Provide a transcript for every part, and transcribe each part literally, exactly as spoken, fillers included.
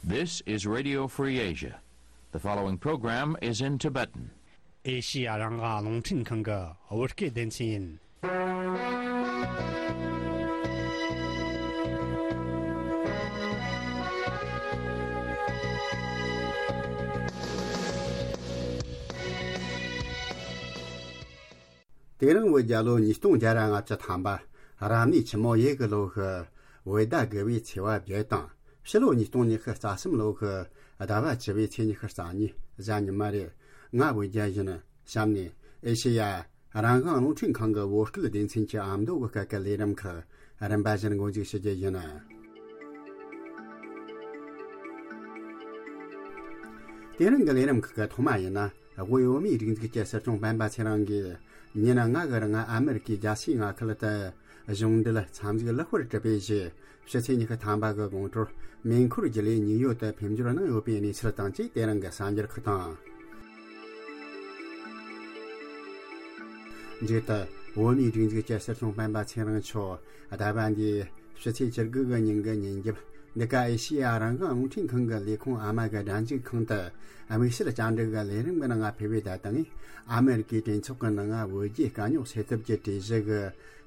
This is Radio Free Asia. The following program is in Tibetan. ཨེ་ཤི་ཡ་རང་དབང་རླུང་འཕྲིན་ཁང་གི་བོད་སྐད་སྡེ་ཚན་ཡིན། དེ་རིང་བོད་རྒྱལ་ལོ་ཉིས་སྟོང་བརྒྱ་ར་ལྔ་བཅུ་ཐམ་པ། རབ་གནས་ཆུ་མོ་ཡོས་གི་ལོ་གི་བོད་ཟླ་དགུ་པའི་ཚེས་པ་བརྒྱད་དང་། ཕྱི་ལོ་ཉིས་སྟོང་ཉི་ཤུ་རྩ་གསུམ་ལོ་གི་ཟླ་བ་བཅུ་པའི་ཚེས་ཉི་ཤུ་རྩ་གཉིས་གཟའ་ཉི་མ་རེད། ང་བོད་རྒྱལ་ཡིན། གཤམ་ནས་ཨེ་ཤེ་ཡ་རང་དབང་རླུང་འཕྲིན་ཁང་གི་བོད་སྐད་སྡེ་ཚན་གྱི་ཨ་མདོ་གི་སྐད་ཀྱི་ལས་རིམ་ཁག་རིམ་པ་བཞིན་འགོ་འཛུགས་ཞུ་རྒྱུ་ཡིན། དེ་རིང་གི་ལས་རིམ་ཁག་གི་ཐོག་མ་ཡིན་ན། དབུས་བོད་མིའི་སྒྲིག་འཛུགས་ཀྱི་སྲིད་སྐྱོང་སྤེན་པ་ཚེ་རིང་གིས་ཉིན་ལྔ་གི་རིང་ཨ་མེ་རི་ཀའི་རྒྱལ་སའི་མངའ་ཁུལ་དུ་གཞུང་འབྲེལ་འཚམས་གཟིགས་ལེགས་པར་གྲུབ་པའི་རྗེས། ཕྱི་ཚེས་ཉི་ཤུ་ཐམ་པ་གི་དགོང་དྲོར་མེ་འཁོར་བརྒྱུད་ལས་ནིའུ་ཡོག་ཏུ་ཕེབས་འབྱོར་གནང་ཡོད་པའི་གནས་ཚུལ་དང་བཅས། དེ་རིང་གི་གསར་འགྱུར་ཁག་དང་། མཇུག་ཏུ་བོད་མིའི་སྒྲིག་འཛུགས་ཀྱི་སྲིད་སྐྱོང་སྤེན་པ་ཚེ་རིང་མཆོག་ཟླ་བ་འདིའི་ཕྱི་ཚེས་བཅུ་དགུ་གི་ཉིན་གྱི་ཉིན་རྒྱབ། འདི་ག་ཨེ་ཤེ་ཡ་རང་དབང་རླུང་འཕྲིན་ཁང་གི་ལས་ཁུངས་ཨ་མ་གི་སྒྲ་འཇུག་ཁང་དུ་དམིགས་བསལ་བཅར་འདྲི་གི་ལས་རིམ་གྱི་ནང་ཕེབས་པའི་ད་ལྟ་ཨ་མེ་རི་ཀའི་གྲོས་ཚོགས་ཀྱི་ནང་བོད་རྒྱའི་དཀའ་རྙོག་སེལ་ཐབས་ཀྱི་གྲོས་གཞི་གི་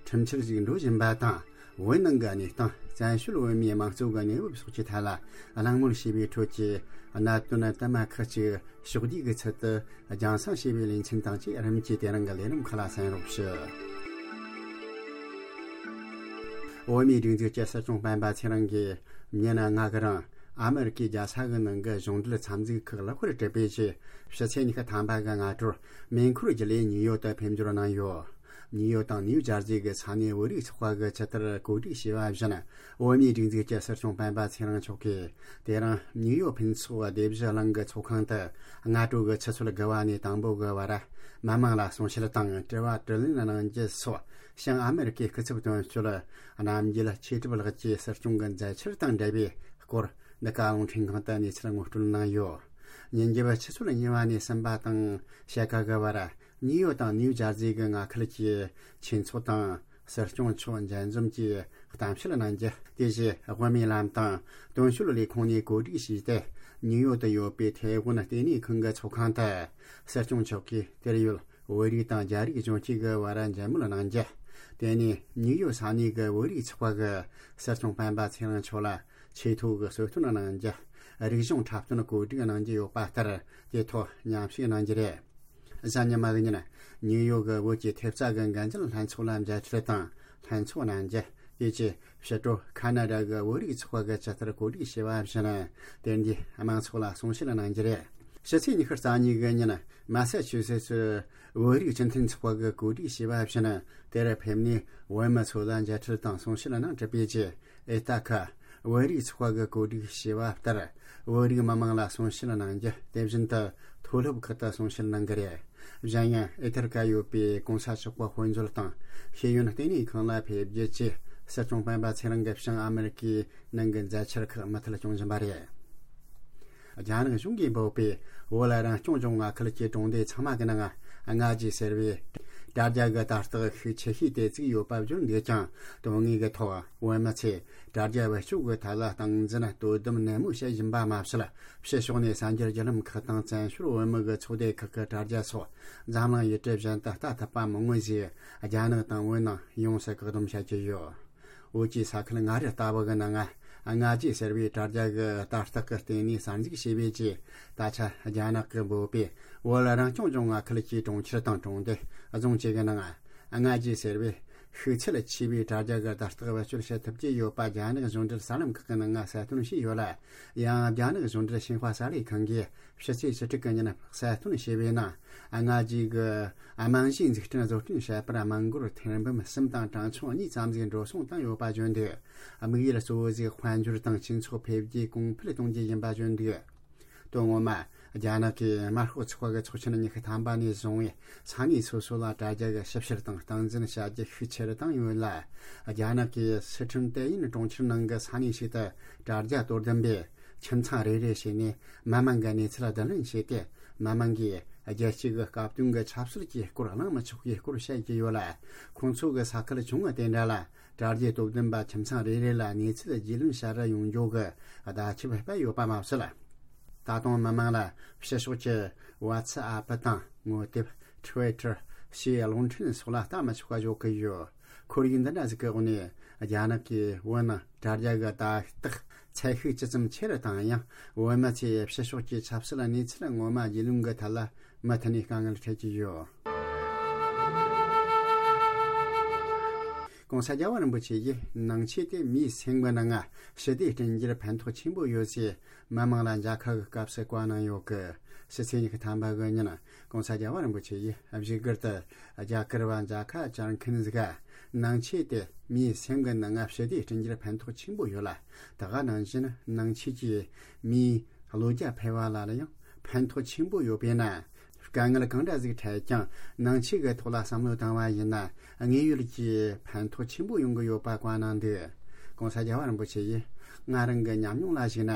ཁྲིམས་འཆར་ཞིག་འགྲོ་བཞིན་པ་དང་། བོད་ནང་གི་གནས་སྟངས། བཙན་བྱོལ་བོད་མིའི་དམངས་གཙོ་གི་གནས་བབ་སོགས་ཀྱི་ཐད་ལ་གླེང་མོལ་བྱས་པའི་ཁྲོད་ཀྱི་གནད་དོན་དུ་མ་ཁག་ཅིག་ཕྱོགས་བསྡུས་ཀྱི་ཚུལ་དུ་རྒྱང་སྲིང་བྱས་པའི་ལེ་ཚན་དང་བཅས། རིམ་གྱིས་དེ་རིང་གི་ལས་རིམ་ཁག་ལ་གསན་རོགས་ཞུ། བོད་མིའི་སྒྲིག་འཛུགས་ཀྱི་སྲིད་སྐྱོང་སྤེན་པ་ཚེ་རིང་གིས་ཉིན་ལྔ་གི་རིང་ཨ་མེ་རི་ཀའི་རྒྱལ་ས་གི་ནང་གི་གཞུང་འབྲེལ་འཚམས་གཟིགས་ཁག་ལེགས་པར་གྲུབ་པའི་རྗེས། ཕྱི་ཚེས་ཉི་ཤུ་ཐམ་པ་གི་སྔ་དྲོར་མེ་འཁོར་བརྒྱུད་ལས་ནིའུ་ཡོག་ཏུ་ཕེབས་འབྱོར་གནང་ཡོད། ནིའུ་ཡོག་དང་ནིའུ་ཇར་ཟི་གི་ས་གནས་བོད་རིགས་ཚོགས་པ་གི་ཆེད་དུ་གོ་སྒྲིག་བྱས་པ་བཞིན། བོད་མིའི་སྒྲིག་འཛུགས་ཀྱི་སྲིད་སྐྱོང་སྤེན་པ་ཚེ་རིང་མཆོག་གིས་དེ་རིང་ནིའུ་ཡོག་ཕུན་ཚོགས་སྡེ་བཞི་གླིང་གི་ཚོགས་ཁང་དུ་སྔ་དྲོ་གི་ཆུ་ཚོད་དགུ་པ་ནས་དང་པོ་གི་བར་མི་མང་ལ་གསུང་བཤད་དང་དྲི་བ་དྲིས་ལན་གནང་རྒྱུ་སོགས། བྱང་ཨ་མེ་རི་ཀའི་སྐུ་ཚབ་དོན་གཅོད་རྣམ་རྒྱལ་ཆོས་གྲུབ་ལགས་ཀྱིས་སྲིད་སྐྱོང་གི་མཛད་འཆར་དང་འབྲེལ་བའི་སྐོར་འདི་ག་རླུང་འཕྲིན་ཁང་དུ་གནས་ཚུལ་ངོ་སྤྲོད་གནང་ཡོད། ཉིན་རྒྱབ་ཆུ་ཚོད་གཉིས་པ་ནས་གསུམ་པ་དང་ཕྱེད་ཀ་གི་བར་ནིའུ་ཡོག་དང་ནིའུ་ཇར་ཟི་གི་མངའ་ཁུལ་གྱི་ཆོས་ཚོགས་དང་སྲིད་སྐྱོང་མཆོག་མཇལ་འཛོམས་ཀྱིས་གཏམ་བཤད་གནང་རྒྱུ། དེ་བཞིན་དབུ་མའི་ལམ་དང་དོན་གཅོད་ལས་ཁུངས་ནས་གོ་སྒྲིག་བྱས་ཏེ། ནིའུ་ཡོག་ཏུ་ཡོད་པའི་ཐའེ་ཝན་ལྟེ་གནས་ཁང་གི་ཚོགས་ཁང་དུ་སྲིད་སྐྱོང་མཆོག་གིས་དེར་ཡོད་བོད་རིགས་དང་རྒྱ་རིགས་གཞོན་སྐྱེས་ཀྱི་བར་མཇལ་མོལ་གནང་རྒྱུ། དེ་ནས་ནིའུ་ཡོག་ས་གནས་ཀྱི་བོད་རིགས་ཚོགས་པ་གི་སྲིད་སྐྱོང་སྤེན་པ་ཚེ་རིང་མཆོག་ལ་ཆེས་མཐོ་གི་གསོལ་སྟོན་གནང་རྒྱུ། རིག་གཞུང་འཁྲབ་སྟོན་གོ་སྒྲིག་གནང་རྒྱུ་ཡོད་པ་ལྟར། དེ་ཐོག་མཉམ་ཞུགས་གནང་རྒྱུ་རེད། གཟའ་ཉི་མ་གི་ཉིན་ནིའུ་ཡོག་གི་བོད་ཀྱི་ཐེབས་རྩ་གི་འགན་འཛིན་ལྷན་ཚོགས་ལ་མཇལ་འཕྲད་དང་ལྷན་ཚོགས་གནང་རྒྱུ། དེ་རྗེས་ཕྱི་དྲོ་ཁ་ན་ཌ་གི་བོད་རིགས་ཚོགས་པ་གི་ཆེད་དུ་གོ་སྒྲིག་བྱས་པ་བཞིན་དེ་འདྲའི་མང་ཚོགས་ལ་གསུང་བཤད་གནང་རྒྱུ་རེད། ཕྱི་ཚེས་ཉི་ཤུ་རྩ་གཉིས་གི་ཉིན་མ་ས་ཆུ་སེ་ཙི་བོད་རིགས་སྤྱི་མཐུན་ཚོགས་པ་གི་གོ་སྒྲིག་བྱས་པ་བཞིན་དེར་ཕེབས་ནས་བོད་མི་ཚོ་ལ་མཇལ་འཕྲད་དང་གསུང་བཤད་གནང་གྲུབ་པའི་རྗེས། ཨེ་ཏ་ཁ་བོད་རིགས་ཚོགས་པ་གི་གོ་སྒྲིག་བྱས་པ་ལྟར་བོད་རིགས་མི་མང་ལ་གསུང་བཤད་གནང་རྒྱུ། དེ་བཞིན་དུ་མཐོ་སློབ་ཁག་ཏུ་གསུང་བཤད་གནང་གི་རེད། གཞན་ཡང་ཨེ་ཐར་ཀ་ཡོད་པའི་གོང་ས་མཆོག་གི་དཔེ་མཛོད་དང་ཤེས་ཡོན་ལྟེ་གནས་ཁང་ལ་ཕེབས་རྒྱུ་བཅས་སྲིད་སྐྱོང་སྤེན་པ་ཚེ་རིང་གི་བྱང་ཨ་མེ་རི་ཀའི་ནང་གི་མཛད་འཆར་ཁག་མུ་མཐུད་སྐྱོང་བཞིན་པ་རེད། རྒྱ་ནག་གཞུང་གིས་འབོད་པའི་བོད་ལ་རང་སྐྱོང་ལྗོངས་མངའ་ཁུལ་གྱི་གྲོང་སྡེ་ཚང་མ་གི་ནང་ལྔ་ཇི་ཟེར་བའི་དྲ་རྒྱ་གི་དར་རྟགས་ཤུགས་ཆེ་ཤོས་དེ་བཙུགས་ཡོད་པ་བརྗོད་འདུག་ཀྱང་། དོན་དངོས་ཀྱི་ཐོག་བོད་མི་ཚོས་དྲ་རྒྱ་བེད་སྤྱོད་ཀྱི་ཐད་ལ་སྟངས་འཛིན་དོ་དམ་ནན་མོ་བྱེད་བཞིན་པ་མ་ཟད། ཕྱི་ཕྱོགས་ནས་གསར་འགྱུར་བརྒྱུད་ལམ་ཁག་དང་བཙན་བྱོལ་བོད་མི་གི་ཚོགས་སྡེ་ཁག་གི་དྲ་རྒྱ་སོགས་འཛམ་གླིང་ཡུལ་གྲུ་གཞན་དུ་ལྟ་ཐུབ་པ་མང་བོ་ཞིག་རྒྱ་ནག་དང་བོད་ནང་ཡོངས་སུ་བཀག་སྡོམ་བྱ་རྒྱུ་ཡོད། བོད་ཀྱི་ས་ཁུལ་མངའ་རིས་ལྟ་བུ་གི་ནང་ལྔ་ཇི་ཟེར་བའི་དྲ་རྒྱ་གི་དར་རྟགས་ཀྱི་སྟེང་ནས་གསར་འཛུགས་བྱས་པའི་རྗེས། ད་ཆ་རྒྱ་ནག་གིས་འབོད་པའི་བོད་ལ་རང་སྐྱོང་ལྗོངས་མངའ་ཁུལ་གྱི་གྲོང་ཁྱེར་དང་གྲོང་སྡེ་རྫོང་བཅས་ཀྱི་ནང་ལྔ་ཇི་ཟེར་བའི་ཤུགས་ཚད་ཆེ་བའི་དྲ་རྒྱ་གི་དར་རྟགས་བེད་སྤྱོད་བྱེད་ཐུབ་ཀྱི་ཡོད་པ་རྒྱ་ནག་གཞུང་འབྲེལ་གསར་ལམ་ཁག་གི་ནང་ལ་གསལ་སྟོན་བྱས་ཡོད་ལ། ཡང་རྒྱ་ནག་གཞུང་འབྲེལ་ཤིན་ཧྭ་གསར་ལས་ཁང་གིས་ཕྱི་ཚེས་བཅུ་དྲུག་གི་ཉིན་གསལ་སྟོན་བྱས་པའི་ནང་། ལྔ་ཇི་གི་རྨང་གཞིའི་འཛུགས་སྐྲུན་བཟོ་སྐྲུན་བྱེད་པར་དམངས་སྒོར་ཐེར་འབུམ་གསུམ་དང་གྲངས་ཆུང་གཉིས་ཙམ་ཞིག་འགྲོ་སོང་བཏང་ཡོད་པ་བརྗོད་འདུག། དམིགས་ཡུལ་གཙོ་བོ་ཞིག་དཔལ་འབྱོར་དང་སྤྱི་ཚོགས་འཕེལ་རྒྱས་གོང་འཕེལ་གཏོང་རྒྱུ་ཡིན་པ་བརྗོད་འདུག། དོན་ངོ་མ། རྒྱ་ནག་གིས་དམར་ཤོག་ཚོགས་པ་གི་ཚོགས་ཆེན་ཉི་ཤུ་ཐམ་པ་ནས་བཟུང་བའི་ས་གནས་སོ་སོ་ལ་དྲ་རྒྱ་གི་ཞིབ་བཤེར་དང་སྟངས་འཛིན་བྱ་རྒྱུ་ཤུགས་ཆེ་རུ་བཏང་ཡོད་ལ། རྒྱ་ནག་གིས་སི་ཁྲོན་ཏེ་ཡིན་གྲོང་ཁྱེར་ནང་གི་ས་གནས་ཤིག་ཏུ་དྲ་རྒྱ་དོ་དམ་པས་ཁྱིམ་ཚང་རེ་རེ་བྱས་ནས་མི་མང་གི་གནས་ཚུལ་བསྡུ་ལེན་བྱས་ཏེ། མི་མང་གིས་ རྒྱལ་སྤྱི་གི་སྐབས་དོན་གྱི་ཆབ་སྲིད་ཀྱི་སྐོར་གླེང་མི་ཆོག་པའི་སྐོར་བཤད་ཀྱི་ཡོད་ལ། ཁོང་ཚོ་གི་ས་ཁུལ་ཆུང་ངུ་དེ་འདྲ་ལ་དྲ་རྒྱའི་དོ་དམ་པ་ཁྱིམ་ཚང་རེ་རེ་ལ་གནས་ཚུལ་རྒྱུས་ལོན་བྱ་ར་ཡོང་རྒྱུ་གི་བརྡ་ཁྱབ་སྤེལ་ཡོད་པ་མ་ཟད། ད་དུང་མི་མང་ལ་ཕྱི་ཕྱོགས་ཀྱི་ཝ་ཚི་ཨ་པི་དང་ངོ་དེབ། ཊི་ཝི་ཊར་ཞེས་གློག་འཕྲིན་སོགས་ལ་ལྟ་མི་ཆོག་པ་བཟོ་གི་ཡོད། ཁོར་ཡུག་འདི་འདྲ་ཟིག་གི་འོག་ནས་རྒྱ་ནག་གིས་བོད་ནང་དྲ་རྒྱ་གི་ལྟ་རྟོག་ཚད་ཤུགས་ཇི་ཙམ་ཆེ་རུ་བཏང་ཡང་། བོད་མི་ཚོས་ཕྱི་ཕྱོགས་ཀྱི་ཆབ་སྲིད་གནས་ཚུལ་ངོ་མ་རྒྱུས་ལོན་གྱི་ཐད་ལ་མུ་མཐུད་ནས་དཀའ་ངལ་འཕྲད་ཀྱི་ཡོད། ༸གོང་ས་རྒྱལ་བ་རིན་པོ་ཆེ་ཡིས་ནང་ཆོས་དེ་མིའི་སེམས་ཀྱི་ནང་ང་ཞི་བདེ་བསྐྲུན་རྒྱུར་ཕན་ཐོགས་ཆེན་པོ་ཡོད་ཅེས་མི་མང་ལ་མཇལ་ཁ་གི་སྐབས་སུ་བཀའ་གནང་ཡོད་སྐད། ཕྱི་ཚེས་ཉི་ཤུ་ཐམ་པ་གི་ཉིན། ༸གོང་ས་རྒྱལ་བ་རིན་པོ་ཆེ་ཡིས་བཞུགས་སྒར་དུ་རྒྱ་གར་བ་མཇལ་ཁ་བཅར་མཁན་ཟིག་ག་ནང་ཆོས་དེ་མིའི་སེམས་ཀྱི་ནང་ང་ཞི་བདེ་བསྐྲུན་རྒྱུར་ཕན་ཐོགས་ཆེན་པོ་ཡོད་ལ། དེ་ག་ནང་བཞིན་ནང་ཆོས་ཀྱིས་མིའི་བློ་རྒྱ་འཕེལ་བ་ལ་ལ་ཡང་ཕན་ཐོགས་ཆེན་པོ་ཡོད་པས་ན། དཀའ་ངལ་གང་འདྲ་ཟིག་འཕྲད་ཀྱང་ནང་ཆོས་ཀྱི་ཐོག་ལ་བསམ་བློ་བཏང་བ་ཡིན་ན། དངོས་ཡོད་ཀྱི་ཕན་ཐོགས་ཆེན་པོ་ཡོང་གི་ཡོད་པ་བཀའ་གནང་འདུག ༸གོང་ས་རྒྱལ་བ་རིན་པོ་ཆེ་ཡིས་ང་རང་གི་ཉམས་མྱོང་ལ་གཞིགས་ན།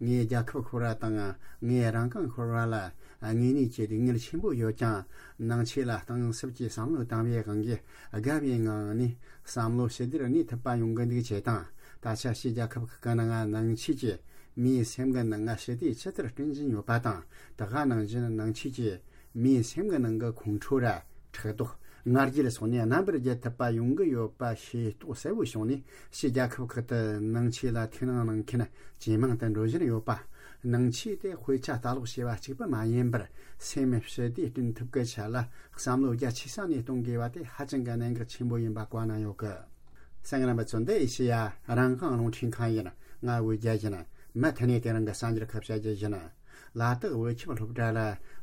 ངས་རྒྱལ་ཁབ་ཤོར་བ་དང་ངས་རང་དབང་ཤོར་བ་ལ་དངོས་གནས་ཀྱི་སྡུག་བསྔལ་ཆེན་པོ་ཡོད་ཀྱང་། ནང་ཆོས་ལ་གཏིང་ཟབ་ཀྱིས་བསམ་བློ་བཏང་བའི་དབང་གིས་དགའ་བའི་ངང་ནས་བསམ་བློ་ཞི་བདེར་གནས་ཐུབ་པ་ཡོང་གི་འདུག་ཅེས་དང་། ད་ཆ་ཕྱིའི་རྒྱལ་ཁབ་ཁག་གི་ནང་ནང་ཆོས་ཀྱིས་མིའི་སེམས་ཀྱི་ནང་ང་ཞི་བདེ་ཇི་ལྟར་བསྐྲུན་བཞིན་ཡོད་པ་དང་། དེ་ག་ནང་བཞིན་ནང་ཆོས་ཀྱིས་མིའི་སེམས་ཀྱི་ནང་གི་ཁོང་ཁྲོ་ར་ཕྲག་དོག་ང་རྒྱལ་སོགས་ནས་རྣམ་པར་རྒྱལ་ཐུབ་པ་ཡོང་གི་ཡོད་པ་ཤེས་རྟོགས་གསལ་བོ་བྱུང་ནས། ཕྱིའི་རྒྱལ་ཁབ་ཁག་ཏུ་ནང་ཆོས་ལ་ཐུགས་སྣང་གནང་མཁན་ཇེ་མང་དུ་འགྲོ་བཞིན་ཡོད་པ། ནང་ཆོས་དེ་དཔེ་ཆ་ལྟ་ཀློག་བྱས་པ་གཅིག་པུ་མ་ཡིན་པར། སེམས་ཞི་བདེ་བསྐྲུན་ཐབས་ཀྱི་ཆེད་ལ་བསམ་བློ་རྒྱ་ཆེ་ས་ནས་གཏོང་དགོས་པ་དེ་ཧ་ཅང་གི་གནད་འགག་ཆེན་པོ་ཡིན་པ་བཀའ་གནང་ཡོད་གི། གསན་མཁན་རྣམ་པ་ཚོ། འདི་ཨེ་ཤེ་ཡ་རང་དབང་རླུང་འཕྲིན་ཁང་ཡིན། ང་འོད་རྒྱལ་ཡིན། མུ་མཐུད་ནས་དེ་རིང་གི་གསར་འགྱུར་ཁག་བཤད་རྒྱུ་ཡིན། ལ་དྭགས་བོད་ཁྱིམ་སློབ་གྲྭ་ལ་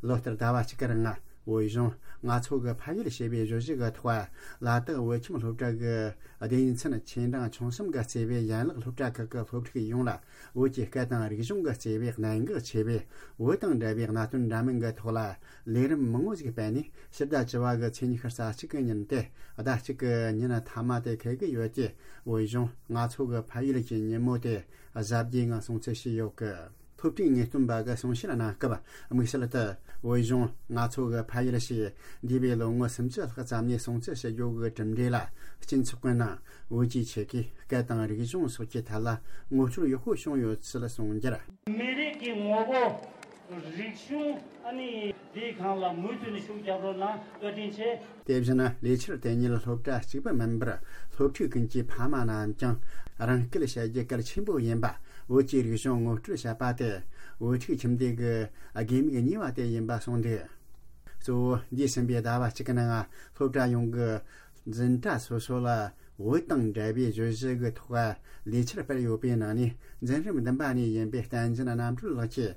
ལོ་ལྟར་ཟླ་བ་གཅིག་གི་རིང་བོད་གཞུང་ང་ཚོ་གི་ཕ་ཡུལ་ཞེས་པའི་བརྗོད་གཞི་གི་ཐོག་ལ་དྭགས་བོད་ཁྱིམ་སློབ་གྲྭ་གི་སྡེ་ཚན་ཆེ་འབྲིང་ཆུང་གསུམ་གྱིས་གཙོས་པའི་ཡན་ལག་སློབ་གྲྭ་ཁག་གི་སློབ་ཕྲུག་ཡོངས་ལ་བོད་ཀྱི་སྐད་དང་རིག་གཞུང་གི་གཙོས་པའི་གནད་འགག་ཆེ་བའི་བོད་དང་འབྲེལ་བའི་གནད་དོན་འདྲ་མིན་གྱི་ཐོག་ལ་ལས་རིམ་མང་བོ་ཞིག་སྤེལ་ནས། ཕྱི་ཟླ་བཅུ་བ་གི་ཚེས་ཉི་ཤུ་རྩ་གཅིག་གི་ཉིན་ཏེ་ཟླ་གཅིག་གི་ཉིན་མཐའ་མ་དེ་འཁེལ་གྱི་ཡོད་ཅེས་བོད་གཞུང་ང་ཚོ་གི་ཕ་ཡུལ་གྱི་ཉིན་མོ་དེ་གཟབ་རྒྱས་ངང་སྲུང་བརྩི་བྱས་ཡོད་གི། སློབ་ཕྲུག་ངེས་སྟོན་པ་གི་གསུང་བཤད་གནང་སྐབས། དམིགས་བསལ་དུ་བོད་གཞུང་ང་ཚོ་གི་ཕ་ཡུལ་ཞེས་འདས་པའི་ལོ་ངོ་སུམ་ཅུ་ལྷག་ཙམ་ནས་སྲུང་བརྩི་བྱེད་རྒྱུ་གི་གྲུབ་འབྲས་ལ། སྤྱི་ཚོགས་ཀྱི་ནང་བོད་ཀྱི་ཆོལ་ཁའི་སྐད་དང་རིག་གཞུང་སོགས་ཀྱི་ཐད་ལ་ངོ་སྤྲོད་ཡག་པོ་བྱུང་ཡོད་ཚུལ་གསུངས་རྒྱུར། མི་རིགས་ཀྱི་ངོ་བོ། རིག་གཞུང་། ཨ་ནི་དེའི་སྒང་ལ་མུ་མཐུད་ནས་ཤུགས་རྒྱབ་རོགས་གནང་། བཀའ་དྲིན་ཆེ། དེ་བཞིན་ལས་འཆར་དེ་ཉིད་སློབ་གྲྭ་གཅིག་པུ་མིན་པར། སློབ་ཕྲུག་ཀུན་གྱི་ཕ་མ་རྣམས་ཀྱང་རང་སྐད་བཤད་རྒྱུ་གལ་ཆེན་པོ་ཡིན་པ། བོད་ཀྱི་རིག་གཞུང་ངོ་སྤྲོད་བྱེད་པ་དེ་བོད་ཕྲུག་ཁྱིམ་སྡེ་གི་དགོས་དམིགས་གཉིས་པ་དེ་ཡིན་པ་གསུངས་འདུག་གཙོ་བོ་འདས་ཟིན་པའི་ཟླ་བ་གཅིག་གི་ནང་སློབ་གྲྭ་ཡོངས་ཀྱི་འཛིན་གྲྭ་སོ་སོ་ལ་བོད་དང་འབྲེལ་བའི་བརྗོད་གཞི་གི་ཐོག་ལས་འཆར་སྤེལ་ཡོད་པའི་ནང་ནས། འཛིན་རིམ་བདུན་པ་ནས་ཡིན་པའི་བསྟན་འཛིན་རྣམ་གྲོལ་ལགས་ཀྱིས་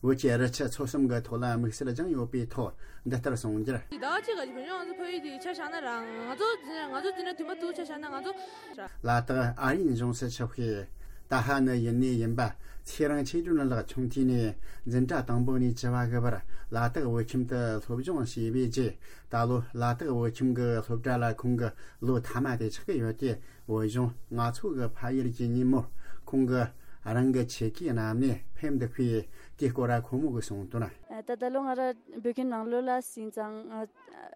བོད་ཀྱི་རི་ཆུ་མཚོ་གསུམ་གྱི་ཐོག་ལ་དམིགས་བསལ་སྦྱངས་ཡོད་པའི་ཐོག་འདི་ལྟར་གསུངས་རྒྱུར། ཟླ་གཅིག་ག་བོད་ལྗོངས་ང་ཚོ་ཕ་ཡུལ་དེ་ཆ་བཞག་ན་ར། ང་ཚོ་འཛིན་ང་ཚོ་འཛིན་གྲྭ་བདུན་པ་དུ་ཆ་བཞག་ན་ང་ཚོ། ལ་དྭགས་ཨ་རིའི་གཞུང་སུ་ཆིབས་ཞུས། ཏཱ་ཧ་ནི་ཡུན་ནས་ཡིན་པ་ཚེ་རིང་ཆོས་སྒྲོན་ལགས་ཆུང་དུས་ནས་འཛིན་གྲྭ་དང་པོ་ནས་བཅུ་བ་གི་བར་ལ་དྭགས་བོད་ཁྱིམ་དུ་སློབ་སྦྱོང་བྱས་པའི་རྗེས། ད་ལོ་ལ་དྭགས་བོད་ཁྱིམ་གྱི་སློབ་གྲྭ་ལ་ཁོང་གི་ལོ་མཐའ་མ་དེ་ཆགས་ཀྱི་ཡོད་དེ། བོད་གཞུང་ང་ཚོ་གི་ཕ་ཡུལ་གྱི་ཉིན་མོར་ཁོང་གིས་རང་གི་ཆེད་ཀྱི་རྣམ་ནས་ཕེབས་འདུག་པས། དེའི་སྐོར་ལ་ཁོང་མོ་གིས་གསུངས་དོན། ད་ད་ལོ་ང་རང་བོད་ཁྱིམ་ནང་ལོགས་ལ་ཟིན་ཙང་། ཨ།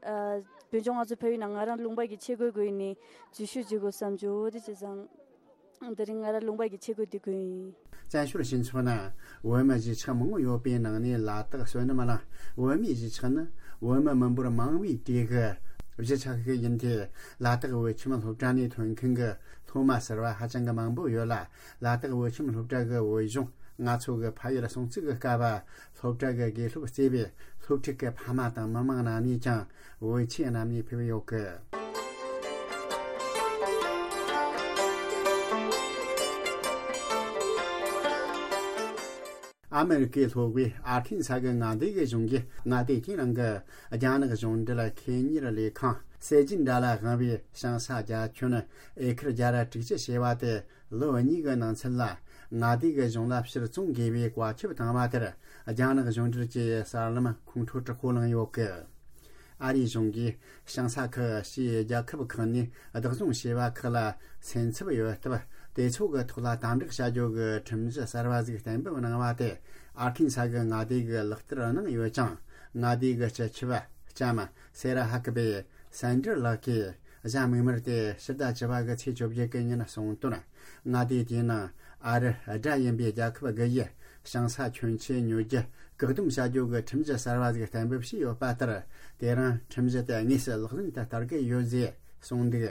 ཨ། བོད་ལྗོངས་ང་ཚོ་ཕ་ཡུལ་ནང་ང་རང་ལུང་པ་གི་ཆས་གོས་གོན་ནས་འཛུལ་ཞུགས་བྱེད་དགོས་བསམ་བྱུང་། འོ་དེ་བྱས་ཙང་དེ་རིང་ང་རང་ལུང་པ་གི་ཆས་གོས་དེ་གོན་ཡིན། བཙན་བྱོལ་སྤྱི་ཚོགས་ནང་བོད་མི་གཞིས་ཆགས་མང་པོ་ཡོད་པའི་ནང་ནས་ལ་དྭགས་བསོད་ནམས་གླིང་བོད་མིའི་གཞིས་ཆགས་ནི་བོད་མི་མི་འབོར་མང་བའི་གྲས་ཀྱི་གཞིས་ཆགས་ཤིག་ཡིན་ཏེ། ལ་དྭགས་བོད་ཁྱིམ་སློབ་གྲྭ་ནས་ཐོན་མཁན་གྱི་སློབ་མ་ཟུར་པ་ཧ་ཅང་གི་མང་པོ་ཡོད་ལ། ལ་དྭགས་བོད་ཁྱིམ་སློབ་གྲྭ་གི་བོད་གཞུང་ང་ཚོ་གི་ཕ་ཡུལ་སྲུང་བརྩི་གི་སྐབས། སློབ་གྲྭ་གི་དགེ་སློབ་གཙོས་པའི་སློབ་ཕྲུག་གི་ཕ་མ་དང་མི་མང་རྣམས་ནས་ཀྱང་བོད་ཆས་བསྣམས་ནས་ཕེབས་ཡོད་གི། ཨ་མེ་རི་ཀའི་ལྷོ་ཁའི་ཨར་ཁན་ས་གི་མངའ་སྡེ་གི་གཞུང་གིས་མངའ་སྡེ་དེའི་ནང་གི་རྒྱ་ནག་གཞུང་འབྲེལ་ཁེ་གཉེར་ལས་ཁང་སེ་ཇིན་དྲ་ལ་དབང་བའི་ཞིང་ས་རྒྱ་ཁྱོན་ཨེ་ཁར་བརྒྱ་དྲུག་ཅུ་བྱེ་བ་དེ་ལོ་གཉིས་ཀྱི་ནང་ཚུན་ལ་མངའ་སྡེ་གི་གཞུང་ལ་ཕྱིར་བཙོང་དགོས་པའི་བཀའ་ཁྱབ་བཏང་བ་དེར། རྒྱ་ནག་གཞུང་འབྲེལ་གྱི་གསར་ལམ་ཁོང་ཁྲོ་དྲག་པོ་ལངས་ཡོད་གི། ཨ་རིའི་གཞུང་གིས་ཞིང་ས་ཁག་ཕྱིའི་རྒྱལ་ཁབ་ཁག་ནས་བདག་བཟུང་བྱས་པ་ཁག་ལ་སེམས་འཚབ་ཡོད་སྟབས། དེ་ཚོ་གི་ཐོག་ལ་དམ་དྲག་བྱ་རྒྱུ་གི་ཁྲིམས་གཞི་གསར་བ་ཞིག་གཏན་འབེབས་གནང་བ་དེ་ཨར་ཁན་ས་གི་མངའ་སྡེ་གིས་ལག་བསྟར་གནང་ཡོད་ཅིང་། མངའ་སྡེ་གི་སྤྱི་ཁྱབ་ལྕམ་སེ་ར་ཧ་ཀི་བེ་སན་ཏྲི་ལགས་ཀྱིས་གཟའ་མིག་དམར་ཏེ་ཕྱི་ཟླ་བཅུ་པ་གི་ཚེས་བཅོ་བརྒྱད་གི་ཉིན་གསུངས་དོན། མངའ་སྡེ་དེའི་ནང་ཨ་རི་དགྲ་ཡིན་པའི་རྒྱལ་ཁབ་དགུ་ཡིས་ཞིང་ས་ཁྱོན་ཆེ་ཉོ་རྒྱུ་བཀག་སྡོམ་བྱ་རྒྱུ་གི་ཁྲིམས་གཞི་གསར་བ་ཞིག་གཏན་འབེབས་བྱས་ཡོད་པ་ལྟར། དེ་རིང་ཁྲིམས་གཞི་དེ་དངོས་སུ་ལག་ལེན་དུ་བསྟར་གི་ཡོད་ཅེས་གསུངས་འདུག་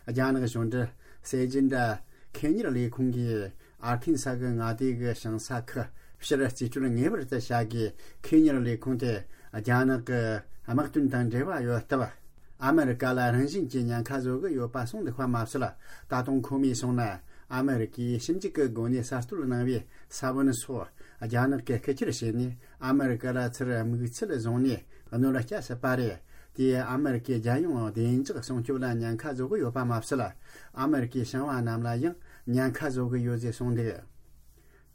རྒྱ་ནག་གཞུང་འབྲེལ་གསལ་བརྗོད་འདྲ་ཁེ་གཉེར་ལས་ཁུངས་ཀྱིས་ཨར་ཁན་ས་གི་མངའ་སྡེ་གི་ཞིང་ས་ཁུལ་ཕྱིར་རྩིས་སྤྲོད་ངེས་པར་དུ་བྱ་དགོས། ཁེ་གཉེར་ལས་ཁུངས་དེ་རྒྱ་ནག་གི་དམག་དོན་དང་འབྲེལ་བ་ཡོད་སྟབས། ཨ་མི་རི་ཀ་ལ་རང་བཞིན་གྱིས་ཉེན་ཁ་བཟོ་གི་ཡོད་པ་གསུངས་འདུག་པ་མ་ཟད། ད་དུང་ཁོ་མོས་གསུངས་ན། ཨ་མི་རི་ཀས་ཞིབ་འཇུག་གི་སྒོ་ནས་གསར་གཏོད་གནང་བའི་ས་བོན་སོགས་རྒྱ་ནག་གིས་རྐུ་འཁྱེར་བྱས་ནས། ཨ་མི་རི་ཀ་ལ་ཚུར་དམིགས་ཚད་བཟུང་ནས་གནོད་སྐྱེལ་སྲིད་པ་རེད། དེས་ཨ་མི་རི་ཀའི་རྒྱལ་ཡོངས་བདེ་འཇགས་སྲུང་སྐྱོབ་ལ་ཉེན་ཁ་བཟོ་གི་ཡོད་པ་མ་ཟད། ཨ་མི་རི་ཀའི་ཞིང་བ་རྣམས་ལ་ཡང་ཉེན་ཁ་བཟོ་གི་ཡོད་ཅེས་གསུངས་འདུག་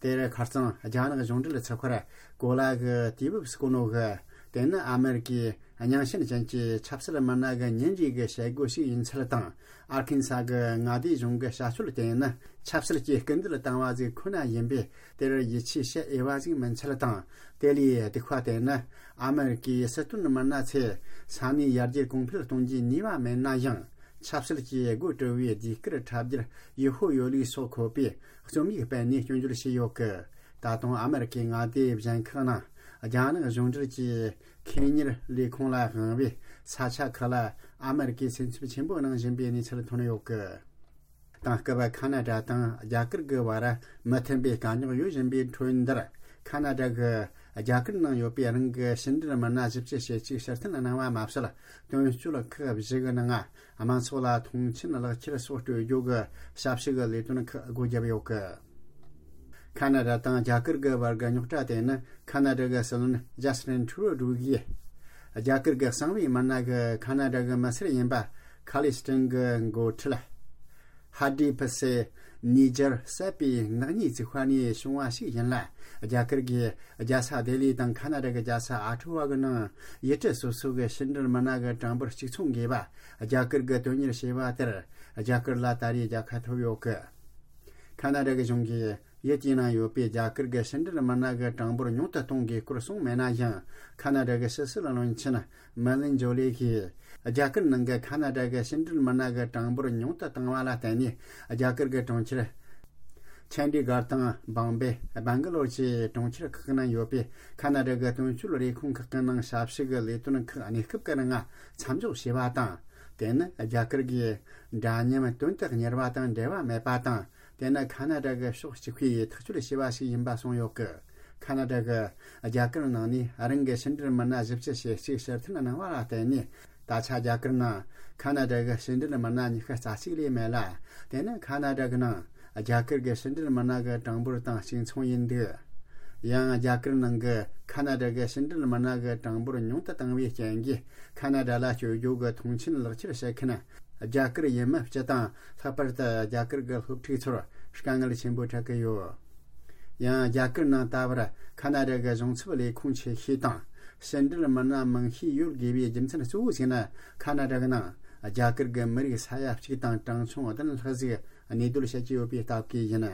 དེར་ཁ་རྩང་རྒྱ་ནག་གཞུང་འབྲེལ་ཚགས་པར་གོ་ལ་གི་དུས་བབ་སྐུ་ནོ་གིས། དེ་ནི་ཨ་མི་རི་ཀའི་རྙིང་ཞེན་ཅན་གྱི་ཆབ་སྲིད་མི་སྣ་གི་ཉིན་རེའི་གི་བྱེད་སྒོ་ཞིག་ཡིན་ཚུལ་དང་། ཨར་ཁན་ས་གི་མངའ་སྡེའི་གཞུང་གི་བྱ་སྤྱོད་དེ་ནི་ཆབ་སྲིད་ཀྱི་སྐུལ་འདེད་བཏང་བ་ཞིག་ཁོ་ན་ཡིན་པས། དེར་ཡིད་ཆེས་བྱེད་འོས་པ་ཞིག་མིན་ཚུལ་དང་། དེ་ལས་སྡུག་པ་དེ་ནི་ཨ་མི་རི་ཀའི་སྲིད་དོན་མི་སྣ་ཚོས་ས་གནས་ཡར་རྒྱས་གོང་འཕེལ་གཏོང་རྒྱུའི་ནུས་པ་མེད་ན་ཡང་། ཆབ་སྲིད་ཀྱི་སྒོ་དཀྲི་བའི་ཟློས་གར་འཁྲབ་རྒྱུར་ཡུལ་ཕོགས་ཡོད་ལུགས་སོགས་འཁོད་པའི་རྩོམ་ཡིག་སྤེལ་ནས་སྐྱོན་བརྗོད་བྱས་ཡོད་སྐད། ད་དུང་ཨ་མི་རི་ཀའི་མངའ་སྡེ་གཞན་ཁག་ནང་རྒྱ་ནག་གཞུང་འབྲེལ་གྱི་ཁེ་གཉེར་ལས་ཁུངས་ལ་དབང་བའི་ས་ཆ་ཁག་ལ་ཨ་མི་རི་ཀས་སེམས་འཚབ་ཆེན་པོ་གནང་བཞིན་པའི་གནས་ཚུལ་ཐོན་ཡོད་སྐད། དེང་སྐབས་ཁ་ན་ཌ་དང་རྒྱ་གར་གྱི་བར་མི་མཐུན་པའི་དཀའ་རྙོག་ཡོད་བཞིན་པའི་ཁྲོད་འདིར། ཁ་ན་ཌ་གིས་རྒྱ་གར་ནང་ཡོད་པའི་རང་གི་ཕྱི་འབྲེལ་མི་སྣ་བཞི་བཅུ་ཞེ་གཅིག་ཕྱིར་འཐེན་གནང་བ་མ་ཟད། དོན་གཅོད་ཁག་བཞི་གི་ནང་དམངས་ཚོགས་ལ་མཐོང་མཆན་ལག་ཁྱེར་སོགས་སྤྲོད་རྒྱུ་གི་ཞབས་ཞུ་གི་ལས་དོན་ཁག་སྒོ་བརྒྱབ་ཡོད་སྐད། ཁ་ན་ཌ་དང་རྒྱ་གར་གྱི་བར་གྱི་རྙོག་དྲ་དེ་ནི་ཁ་ན་ཌ་གི་སྲིད་བློན་ཇ་སི་ཊིན་ཁྲུ་རོ་ཌོ་གིས། རྒྱ་གར་གྱི་གསང་བའི་མི་སྣ་གི་ཁ་ན་ཌ་གི་མི་སེར་ཡིན་པ་ཁ་ལི་སི་ཊིན་གྱི་འགོ་ཁྲིད་ཧ་ཌི་ཕི་སེ་ནི་ཇར་བསད་པའི་ནག་ཉེས་བཙུགས་པ་ནས་བྱུང་བ་ཞིག་ཡིན་ལ། རྒྱ་གར་གྱི་རྒྱལ་ས་ལྡི་ལི་དང་ཁ་ན་ཌ་གི་རྒྱལ་ས་ཨ་ཊ་ཝ་གི་ནང་ཡུལ་གྲུ་སོ་སོ་གི་ཕྱི་འབྲེལ་མི་སྣ་གི་གྲངས་འབོར་གཅིག་མཚུངས་དགོས་པ་རྒྱ་གར་གྱིས་དོན་གཉེར་བྱས་པ་དེར་རྒྱ་གར་ལ་ད་རེས་རྒྱལ་ཁ་ཐོབ་ཡོད་སྐད། ཁ་ན་ཌ་གི་གཞུང་གིས་ཡུལ་དེའི་ནང་ཡོད་པའི་རྒྱ་གར་གྱི་ཕྱི་འབྲེལ་མི་སྣ་གི་གྲངས་འབོར་ཉུང་དུ་གཏོང་དགོས་སྐོར་གསུངས་མེད་ན་ཡང་། ཁ་ན་ཌ་གི་ཕྱི་སྲིད་བློན་ཆེན་མེ་ལིན་ཇོ་ལི་གིས་རྒྱ་གར་ནང་གི་ཁ་ན་ཌ་གི་ཕྱི་འབྲེལ་མི་སྣ་གི་གྲངས་འབོར་ཉུང་དུ་བཏང་བ་ལ་བརྟེན་ནས། རྒྱ་གར་གྱི་གྲོང་ཁྱེར་ཆན་ཌི་གྷར་དང་བང་བེ། སྦན་ག་ལོར་བཅས་གྲོང་ཁྱེར་ཁག་གི་ནང་ཡོད་པའི་ཁ་ན་ཌ་གི་དོན་གཅོད་ལས་ཁུངས་ཁག་གི་ནང་ཞབས་ཞུ་གི་ལས་དོན་ཁག་གནས་སྐབས་ཀྱི་ནང་མཚམས་འཇོག་བྱས་པ་དང་། དེ་ནི་རྒྱ་གར་གྱི་འདྲ་མཉམ་དོན་དུ་གཉེར་བ་དང་འབྲེལ་བ་མེད་པ་དང་། དེ་ནི་ཁ་ན་ཌ་གི་ཕྱོགས་གཅིག་པུས་ཐག་གཅོད་བྱས་པ་ཞིག་ཡིན་པ་གསུངས་ཡོད་སྐད། ཁ་ན་ཌ་གིས་རྒྱ་གར་ནང་ནས་རང་གི་ཕྱི་འབྲེལ་མི་སྣ་བཞི་བཅུ་ཞེ་གཅིག་ཕྱིར་འཐེན་གནང་བ་ལ་བརྟེན་ནས། ད་ཆ་རྒྱ་གར་ནང་ཁ་ན་ཌ་གི་ཕྱི་འབྲེལ་མི་སྣ་ཉི་ཤུ་རྩ་གཅིག་ལས་མེད་ལ། དེ་ནི་ཁ་ན་ཌ་གི་ནང་རྒྱ་གར་གྱི་ཕྱི་འབྲེལ་མི་སྣ་གི་གྲངས་འབོར་དང་གཅིག་མཚུངས་ཡིན་འདུག་ཡང་རྒྱ་གར་ནང་གི་ཁ་ན་ཌ་གི་ཕྱི་འབྲེལ་མི་སྣ་གི་གྲངས་འབོར་ཉུང་དུ་བཏང་བའི་རྐྱེན་གྱིས། ཁ་ན་ཌ་ལ་བསྐྱོད་རྒྱུ་གི་མཐོང་མཆན་ལག་ཁྱེར་བྱེད་མཁན་རྒྱ་གར་ཡུལ་མི་སྤྱི་དང་། ལྷག་པར་དུ་རྒྱ་གར་གྱི་སློབ་ཕྲུག་ཚོར་དཀའ་ངལ་ཆེན་པོ་འཕྲད་ཀྱི་ཡོད། ཡང་རྒྱ་གར་ནང་ད་བར་ཁ་ན་ཌ་གི་གཞུང་ཚབ་ལས་ཁུངས་ཆེ་ཤོས་དང་། ཕྱི་འབྲེལ་མི་སྣ་མང་ཤོས་ཡོད་དགོས་པའི་རྒྱུ་མཚན་གཙོ་བོ་ཞིག་ནི། ཁ་ན་ཌ་གི་ནང་རྒྱ་གར་གྱི་མི་རིགས་ས་ཡ་གཅིག་དང་གྲངས་ཆུང་བདུན་ལྷག་ཞིག་གནས་སྡོད་བྱེད་ཀྱི་ཡོད་པའི་སྟབས་ཀྱིས་ཡིན།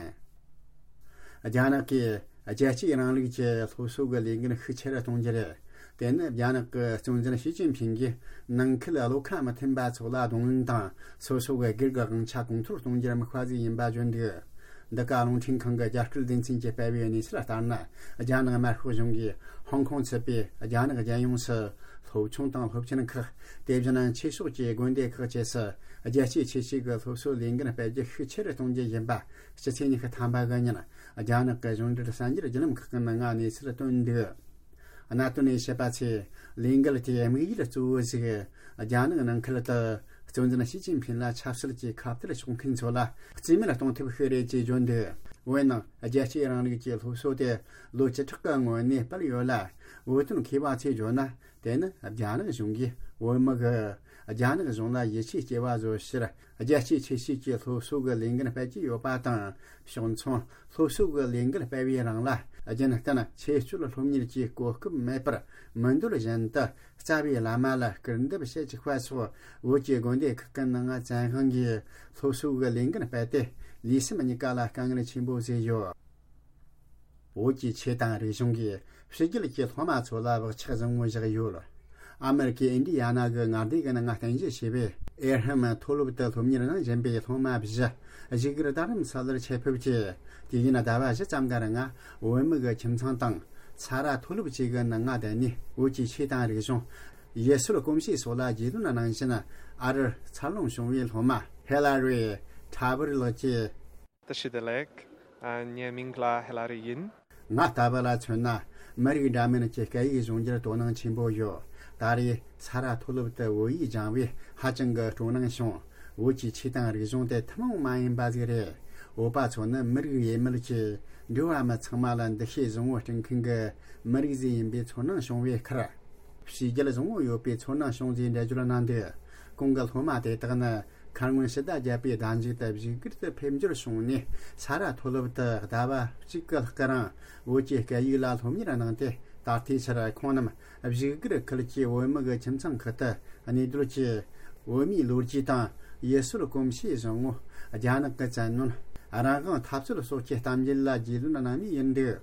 རྒྱ་ནག་གིས་རྒྱལ་གཅེས་རིང་ལུགས་ཀྱི་སློབ་གསོ་གི་ལས་འགན་ཤུགས་ཆེ་རུ་གཏོང་རྒྱུ་རེད། དེ་ནི་རྒྱ་ནག་གི་གཙོ་འཛིན་ཞི་ཅིན་ཕིང་གིས་ནང་ཁུལ་བློ་ཁ་མི་མཐུན་པ་ཚོ་ལ་གདོང་ལེན་དང་། སོ་སོ་གི་སྒེར་གྱི་དབང་ཆ་གོང་མཐོར་གཏོང་རྒྱུར་དམིགས་པ་ཞིག་ཡིན་པ་བརྗོད་འདུག་འདི་ག་རླུང་འཕྲིན་ཁང་གི་རྒྱ་སྐད་སྡེ་ཚན་གྱིས་སྤེལ་བའི་གནས་ཚུལ་ལྟར་ན། རྒྱ་ནག་དམར་ཤོག་གཞུང་གིས་ཧོང་ཀོང་ཚུད་པའི་རྒྱ་ནག་རྒྱལ་ཡོངས་སུ་སློབ་ཆུང་དང་སློབ་ཆེན་ཁག་དེ་བཞིན་ཆོས་ཕྱོགས་ཀྱི་དགོན་སྡེ་ཁག་བཅས་སུ་རྒྱལ་གཅེས་ཆེ་བསྟོད་ཀྱི་སློབ་གསོའི་ལས་འགན་སྤེལ་རྒྱུ་ཤུགས་ཆེ་རུ་གཏོང་རྒྱུ་ཡིན་པ། ཕྱི་ཚེས་ཉི་ཤུ་ཐམ་པ་གི་ཉིན་རྒྱ་ནག་གི་གཞུང་འབྲེལ་གསར་འགྱུར་བརྒྱུད་ལམ་ཁག་གི་ནང་གནས་ཚུལ་བཏོན་འདུག་གནད་དོན་ནས་བཤད་པ་ཚེ། ལས་འགུལ་དེའི་དམིགས་ཡུལ་གཙོ་བོ་ཞིག་རྒྱ་ནག་ནང་ཁུལ་དུ་གཙོ་འཛིན་ཞི་ཅིན་ཕིན་ལ་ཆབ་སྲིད་ཀྱི་ཁ་གཏད་གཅོག་མཁན་ཚོ་ལ་རྩིས་མེད་གཏོང་ཐབས་ཤིག་རེད་ཅེས་བརྗོད་འདུག་འོན་ནང་། རྒྱལ་གཅེས་རིང་ལུགས་ཀྱི་སློབ་གསོ་དེ་ལོ་བཅུ་ཕྲག་གི་སྔོན་ནས་སྤེལ་ཡོད་ལ། བོད་དོན་མཁས་པ་ཚོས་བརྗོད་ན། དེ་ནི་རྒྱ་ནག་གཞུང་གིས་བོད་མི་གིས་རྒྱ་ནག་གཞུང་ལ་ཡིད་ཆེས་སྐྱེ་བ་བཟོ་ཕྱིར། རྒྱལ་གཅེས་ཆེ་བསྟོད་ཀྱི་སློབ་གསོ་གི་ལས་འགན་སྤེལ་གྱི་ཡོད་པ་དང་། ཕྱོགས་མཚུངས་སློབ་གསོ་གི་ལས་འགན་སྤེལ་བའི་རིང་ལ། རྒྱུན་གཏན་ཆོས་སྤྱོད་སློབ་གཉེར་གྱི་གོ་སྐབས་མེད་པར། མི་འདོད་བཞིན་དུ་རྩ་བའི་བླ་མ་ལ་སྐུར་འདེབས་བྱེད་བཅུག་པ་སོགས། བོད་ཀྱི་དགོན་སྡེ་ཁག་གི་ནང་བཙན་དབང་གིས་སློབ་གསོ་གི་ལས་འགན་སྤེལ་ཏེ། ལུས་སེམས་གཉིས་ཀ་ལ་དཀའ་ངལ་ཆེན་པོ་བཟོས་ཡོད། བོད་ཀྱི་ཆོས་དང་རིག་གཞུང་གི་ ཕྱི་རྒྱལ་གྱི་སློབ་མ་ཚོ་ལ་བག་ཆགས་བཟང་བོ་བཞག་ཡོད། ཨ་མེ་རི་ཀའི་ཨིན་ཌི་ཡ་ན་གི་མངའ་སྡེ་གི་ནང་ང་རྟེན་གཞི་བྱས་པའི་ཨེ་ར་ཧམ་མཐོ་སློབ་ཏུ་སློབ་གཉེར་གནང་བཞིན་པའི་སློབ་མ་བཞི་བཞུགས་སྒར་རྡ་རམ་ས་ལར་ཆེད་ཕེབས་ཀྱིས། དུས་ཡུན་ཟླ་བ་བཞི་ཙམ་གི་རིང་བོད་མི་གི་ཁྱིམ་ཚང་དང་ཚ་ར་མཐོ་སློབ་བཅས་ཀྱི་ནང་ང་བསྡད་ནས་བོད་ཀྱི་ཆོས་དང་རིག་གཞུང་། ཡུལ་སྲོལ་གོམས་གཤིས་སོགས་ལ་རྒྱུས་ལོན་གནང་བཞིན། ཨ་རིར་འཚར་ལོངས་བྱུང་བའི་སློབ་མ་ཧེ་ལ་རི་ཁྲ་བུར་ལགས་ཀྱིས། བཀྲ་ཤིས་བདེ་ལེགས། ཨ། ངའི་མིང་ལ་ཧེ་ལ་རི་ཡིན། ང་ལྟ་བུ་ལ་མཚོན་ན། མི་རིགས་འདྲ་མིན་གྱི་སྐད་ཡིག་སྦྱོང་རྒྱུར་དོ་སྣང་ཆེན་པོ་ཡོད། ད་རེས་ཚ་ར་མཐོ་སློབ་ཏུ་བོད་ཡིག་སྦྱངས་པས་ཧ་ཅང་གི་སྤྲོ་སྣང་བྱུང་། བོད་ཀྱི་ཆོས་དང་རིག་གཞུང་དེ་ཐུན་མོང་མ་ཡིན་པ་ཟིག་རེད། བོད་པ་ཚོ་ནི་མི་རིགས་ཡས་མས་ཀྱི་འགྲོ་བ་མི་ཚང་མ་ལ་འདུ་ཤེས་བཟང་བོ་སྤྲད་མཁན་གྱི་མི་རིགས་ཟིག་ཡིན་པའི་ཚོར་སྣང་བྱུང་བའི་ཁར། བྱས་རྗེས་བཟང་བོ་ཡོད་པའི་ཚོར་སྣང་བྱུང་ཟིག་འགྲེལ་བརྗོད་གནང་འདུག། གོང་གི་སློབ་མ་དེ་དག་ནི། མཁར་སྔོན་ཕྱི་ཟླ་བརྒྱད་པའི་ཟླ་མཇུག་ཏུ་བཞུགས་སྒར་དུ་ཕེབས་འབྱོར་བྱུང་ནས། ཚ་ར་མཐོ་སློབ་ཏུ་ཟླ་བ་གཅིག་གི་ལྷག་གི་རིང་བོད་ཀྱི་སྐད་ཡིག་ལ་སློབ་གཉེར་གནང་སྟེ། ད་ལྟའི་ཆར་ཁོང་རྣམས་བཞུགས་སྒར་ཁུལ་གྱི་བོད་མི་གི་ཁྱིམ་ཚང་ཁག་ཏུ་གནས་སྡོད་ཀྱིས། བོད་མིའི་ལོ་རྒྱུས་དང་ཡུལ་སྲོལ་གོམས་གཤིས་བཟང་བོ། རྒྱ་ནག་གི་བཙན་གནོན། རང་དབང་འཐབ་རྩོད་སོགས་ཀྱི་གཏམ་རྒྱུད་ལ་རྒྱུས་ལོན་གནང་ནི་ཡིན་འདུག།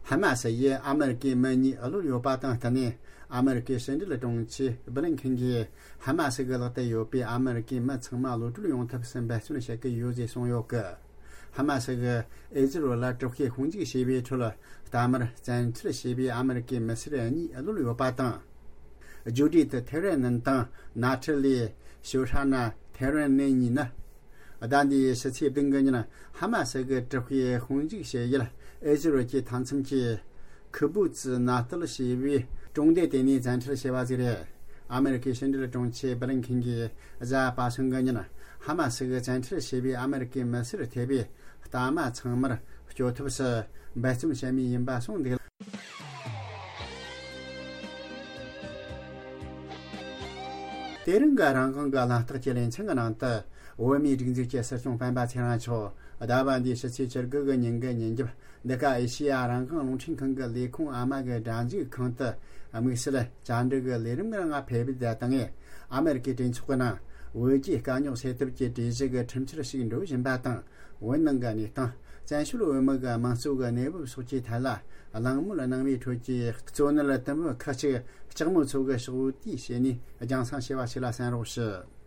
ཧ་མ་སི་ཡིས་ཨ་མེ་རི་ཀའི་མི་གཉིས་གློད་ཡོད་པ་དང་བསྟུན་ནས། ཨ་མེ་རི་ཀའི་ཕྱི་འབྲེལ་དྲུང་ཆེ་སྦི་ལིན་ཁིན་གྱིས། ཧ་མ་སི་གི་ལག་ཏུ་ཡོད་པའི་ཨ་མེ་རི་ཀའི་མི་ཚང་མ་གློད་གྲོལ་ཡོང་ཐབས་སུ་འབད་བརྩོན་བྱེད་ཀྱི་ཡོད་ཅེས་གསུངས་ཡོད་ཀི། ཧ་མ་སི་གིས་ཨི་ཟི་རལ་ལ་དྲག་ཤུགས་དཔུང་འཇུག་བྱས་པའི་ཁྲོད། རྟ་དམར་བཙན་ཁྲིད་བྱས་པའི་ཨ་མེ་རི་ཀའི་མི་སེར་གཉིས་གློད་ཡོད་པ་དང་། ཇུ་ཌི་ཐེ་རེན་ནན་དང་ནཱ་ཐི་ལི་ཤོ་ཧྲ་ན་ཐེ་རེན་ནན་གཉིས་ནི། ཟླ་འདིའི་ཕྱི་ཚེས་བདུན་གི་ཉིན། ཧ་མ་སི་གི་དྲག་པོའི་དཔུང་འཇུག་བྱེད་ཡུལ་ཨི་ཟི་རལ་གྱི་མཐའ་མཚམས་ཀྱི་ཁི་བུ་ཙི་ནཱ་ཏལ་ཞེས་པའི་གྲོང་སྡེ་དེ་ནས་བཙན་ཁྲིད་བྱས་པ་ཟིག་རེད། ཨ་མེ་རི་ཁའི་ཕྱི་འབྲེལ་དྲུང་ཆེ་སྦི་ལིན་ཁིན་གྱིས་གཟའ་པ་སངས་གི་ཉིན། ཧ་མ་སི་གི་བཙན་ཁྲིད་བྱས་པའི་ཨ་མེ་རི་ཁའི་མི་སེར་ཐེ་བའི་རྟ་དམར་ཚང་མར་སྐྱོབ་ཐབས་སུ་འབད་བརྩོན་བྱེད་མུས་ཡིན་པ་གསུངས་འདུག། དེ་རིང་གི་རང་དབང་གི་གླེང་སྟེགས་ཀྱི་ལེ་ཚན་གྱི་ནང་དུ། བོད་མིའི་སྒྲིག་འཛུགས་ཀྱི་སྲིད་སྐྱོང་སྤེན་པ་ཚེ་རིང་མཆོག་ཟླ་བ་འདིའི་ཕྱི་ཚེས་བཅུ་དགུ་གི་ཉིན་གྱི་ཉིན་རྒྱབ། འདི་ག་ཨེ་ཤེ་ཡ་རང་དབང་རླུང་འཕྲིན་ཁང་གི་ལས་ཁུངས་ཨ་མ་གི་སྒྲ་འཇུག་ཁང་དུ། དམིགས་བསལ་བཅར་འདྲི་གི་ལས་རིམ་གྱི་ནང་ཕེབས་པའི་ད་ལྟ་ངས། ཨ་མེ་རི་ཀའི་གྲོས་ཚོགས་ཀྱི་ནང་། བོད་རྒྱའི་དཀའ་རྙོག་སེལ་ཐབས་ཀྱི་གྲོས་གཞི་གི་ཁྲིམས་འཆར་ཞིག་འགྲོ་བཞིན་པ་དང་། བོད་ནང་གི་གནས་སྟངས། བཙན་བྱོལ་བོད་མི་གི་དམངས་གཙོ་གི་གནས་བབ་སོགས་ཀྱི་ཐད་ལ། གླེང་མོལ་གནང་བའི་ཁྲོད་ཀྱི་གཙོ་གནད་དུམ་བུ་ཁག་ཅིག་ལྕགས་མོ་མཚོ་གི་ཕྱོགས་བསྡུས་བྱས་ནས་རྒྱང་སྲིང་བྱས་པ་ཞིག་ལ་གསན་རོགས་ཞུ།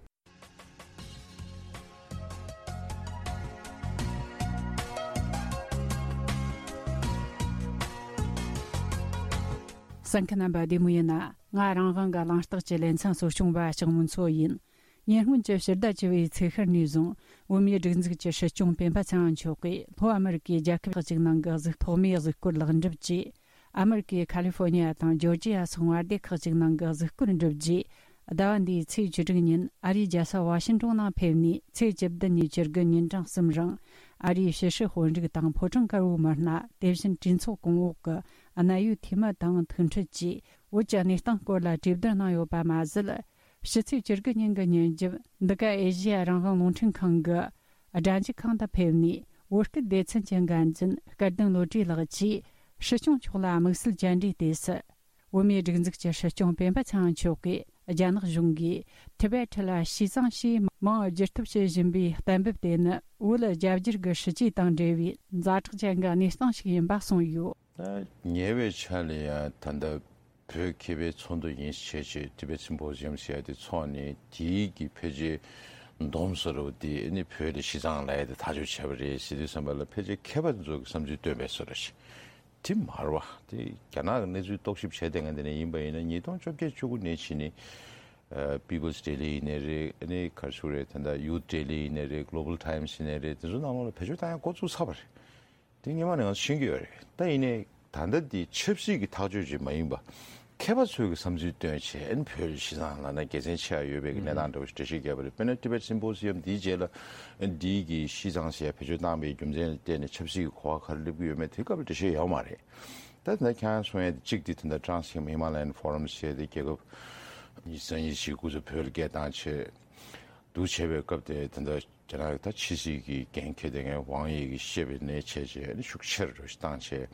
གསན་མཁན་རྣམ་པ་བདེ་མོ་ཡིན་ན། ང་རང་དབང་གི་གླེང་སྟེགས་ཀྱི་ལེ་ཚན་གཙོ་སྐྱོང་བ་ལྕགས་མོ་མཚོ་ཡིན། ཉེ་སྔོན་གྱི་ཕྱི་ཟླ་བཅུ་བའི་ཚེས་ཤར་ནས་བཟུང་། བོད་མིའི་སྒྲིག་འཛུགས་ཀྱི་སྲིད་སྐྱོང་སྤེན་པ་ཚེ་རིང་མཆོག་གིས་ལྷོ་ཨ་མེ་རི་ཀའི་རྒྱལ་ཁབ་ཁག་ཅིག་ནང་གི་གཟུགས། ཐོག་མའི་གཟིགས་སྐོར་ལེགས་འགྲུབ་ཀྱིས། ཨ་མེ་རི་ཀའི་ཁ་ལི་ཧྥོ་ནི་ཡ་དང་ཇོར་ཇི་ཡ་སོགས་མངའ་སྡེ་ཁག་ཅིག་ནང་གི་གཟིགས་སྐོར་འགྲུབ་རྗེས། ཟླ་བ་འདིའི་ཚེས་བཅུ་དྲུག་ཉིན་ཨ་རིའི་རྒྱལ་ས་ཝ་ཤིང་ཏོན་ནང་ཕེབས་ནས། ཚེས་བཅུ་བདུན་ཉིན་བཅུ་དགུ་ཉིན་གྲངས་གསུམ་རིང་། ཨ་རིའི་ཕྱི་སྲིད་དཔོན་རིགས་དང་ཕོ་བྲང་དཀར་པོའི་མི་སྣ། དེ་བཞིན་གྲོས་ཚོགས་གོང་འོག་གི་གནད་ཡོད་འཐུས་མི་དང་ཐུག་འཕྲད་ཀྱིས། བོད་ཀྱི་གནས་སྟངས་སྐོར་ལ་གྲོས་བསྡུར་གནང་ཡོད་པ་མ་ཟད། ཕྱི་ཚེས་བཅུ་དགུ་ཉིན་གྱི་ཉིན་རྒྱབ། འདི་ག་ཨེ་ཤེ་ཡ་རང་དབང་རླུང་འཕྲིན་ཁང་གི་སྒྲ་འཇུག་ཁང་དུ་ཕེབས་ནས། བོད་སྐད་སྡེ་ཚན་གྱི་འགན་འཛིན་སྐལ་ལྡན་བློ་གྲོས་ལགས་ཀྱིས། སྲིད་སྐྱོང་མཆོག་ལ་དམིགས་བསལ་བཅར་འདྲིའི་དུས་སུ། བོད་མིའི་སྒྲིག་འཛུགས་ཀྱི་སྲིད་སྐྱོང་སྤེན་པ་ཚེ་རིང་མཆོག་གིས། རྒྱ་ནག་གཞུང་གིས་ཐི་བེད་ཁྲི་ལ་ཞི་ཙང་ཞེས་མིང་བསྒྱུར་ཐབས་བྱེད་བཞིན་པའི་གཏན་འབེབས་དེ་ནི། བོད་རྒྱ་བསྒྱུར་གྱི་སྲིད་ཇུས་དང་འབྲེལ་བའི་ཛ་དྲག་ཅན་གྱི་གནས་སྟངས་ཤིག་ཡིན་པ་གསུངས་ཡོད། ད་ཉེ་བའི་ཆར་ལ་ཡང་ད་ལྟ་བོད་མཁས་པའི་ཚོགས་འདུ་ཡིན་བྱས་བྱས། ཊི་བེད་སིམ་པོ་ཟི་ཡམ་ཟེར་ཡ་དེ་ཚོགས་ནས། དེའི་གི་ཕལ་ཆེར་སྡོམ་བཟོ་འདྲ་བོ་དེ་ནི་བོད་ལ་ཞི་ཙང་ལབ་ཡ་དེ་ཐག་གཅོད་བྱས་པ་རེད་ཟེར་དུས་ཙམ་པ་ལ། ཕལ་ཆེར་མཁས་པ་ཚོ་གི་བསམ་ཚུལ་བཏོན་པའི་བཟོ་འདྲ་ཞིག་དེ་མ་རེད་པ། དེ་རྒྱ་ནག་གི་གནས་ཚུལ་རྟོག་ཞིབ་བྱས་བསྡད་མཁན་དེ་འདྲ་ཡིན་པ་ཡིན་ན། ཉིས་སྟོང་བཅོ་བརྒྱད་བཅུ་དགུ་ནས་བྱས་ནས། ཨ། པི་པལ་སི་ཌེ་ལི་ཡིན་ནའི་རེད། ཨ་ནི་ག་རེ་ཞུ་དགོས་རེད། ད་ལྟ་ཡུཐ་ཌེ་ལི་ཡིན་ནའི་རེད། གྷི་ལོ་བལ་ཊའིམ་སི་ཡིན་ནའི་རེད། དེ་ཚོ་ནང་ལོགས་ལ་བེད་སྤྱོད་བཏང་ཡ་འགོ་བཙུགས་ཚར་བ་རེད། དེ་སྔོན་མ་ནས་ང་ཚོ་ཤེས་ཀྱི་ཡོད་རེད། ད་ཡིན་ནའི་ད་ལྟ་འདི་ཆབ་སྲིད་ཀྱི་ཐག་གཅོད་ཅིག་མ་ཡིན་པ། མཁས་པ་ཚོས་ཀྱི་བསམ་ཚུལ་བཏོན་བྱས། ཨ་ནི་བོད་ལ་ཞི་ཙང་ལབ་ན་དགེ་མཚན་ཆེ་བ་ཡོད་པའི་གི་གནས་སྟངས་འདྲ་བོ་ཞིག་འགྲེལ་བཤད་བརྒྱབ་པ་རེད། དཔེར་ན་ཊི་བེད་སིམ་པོ་སི་ཡམ་འདིའི་རྗེས་ལ། ཨ་ནི་འདིའི་གི་ཞི་ཙང་ཟེར་ཡ་བེད་སྤྱོད་བཏང་བའི་རྒྱུ་མཚན་ལ་བརྟེན་ནས་ཆབ་སྲིད་ཀྱི་གོ་བ་ག་རེ་སླེབས་ཀྱི་ཡོད་མེད་དེ་སྐབས་ལ་འགྲེལ་བཤད་ཡོད་མ་རེད། ད་ད་ལྟ་ཁྱེད་རང་གསུང་ཡ་དེ་གཅིག་དེ། ད་ལྟ་Trans Himalayan Forum ཟེར་ཡ་དེ་རྒྱལ་ཁབ་ཉི་ཤུ་རྩ་གཉིས་ཤིག་སྐུ་ཚབ་བོད་ལ་སྐད་བཏང་བྱས། འདུག་བྱས་པའི་སྐབས་དེ། ད་ལྟ་རྒྱ་ནག་གི་ད་ཕྱི་སྲིད་ཀྱི་འགན་འཁྱེར་བསྡད་མཁན་ཝང་དབྱི་གིས་བཤད་པའི་གནས་བྱས་བྱས། ཨ་ནི་ཤུགས་ཆེ་རུ་བཏང་བྱས།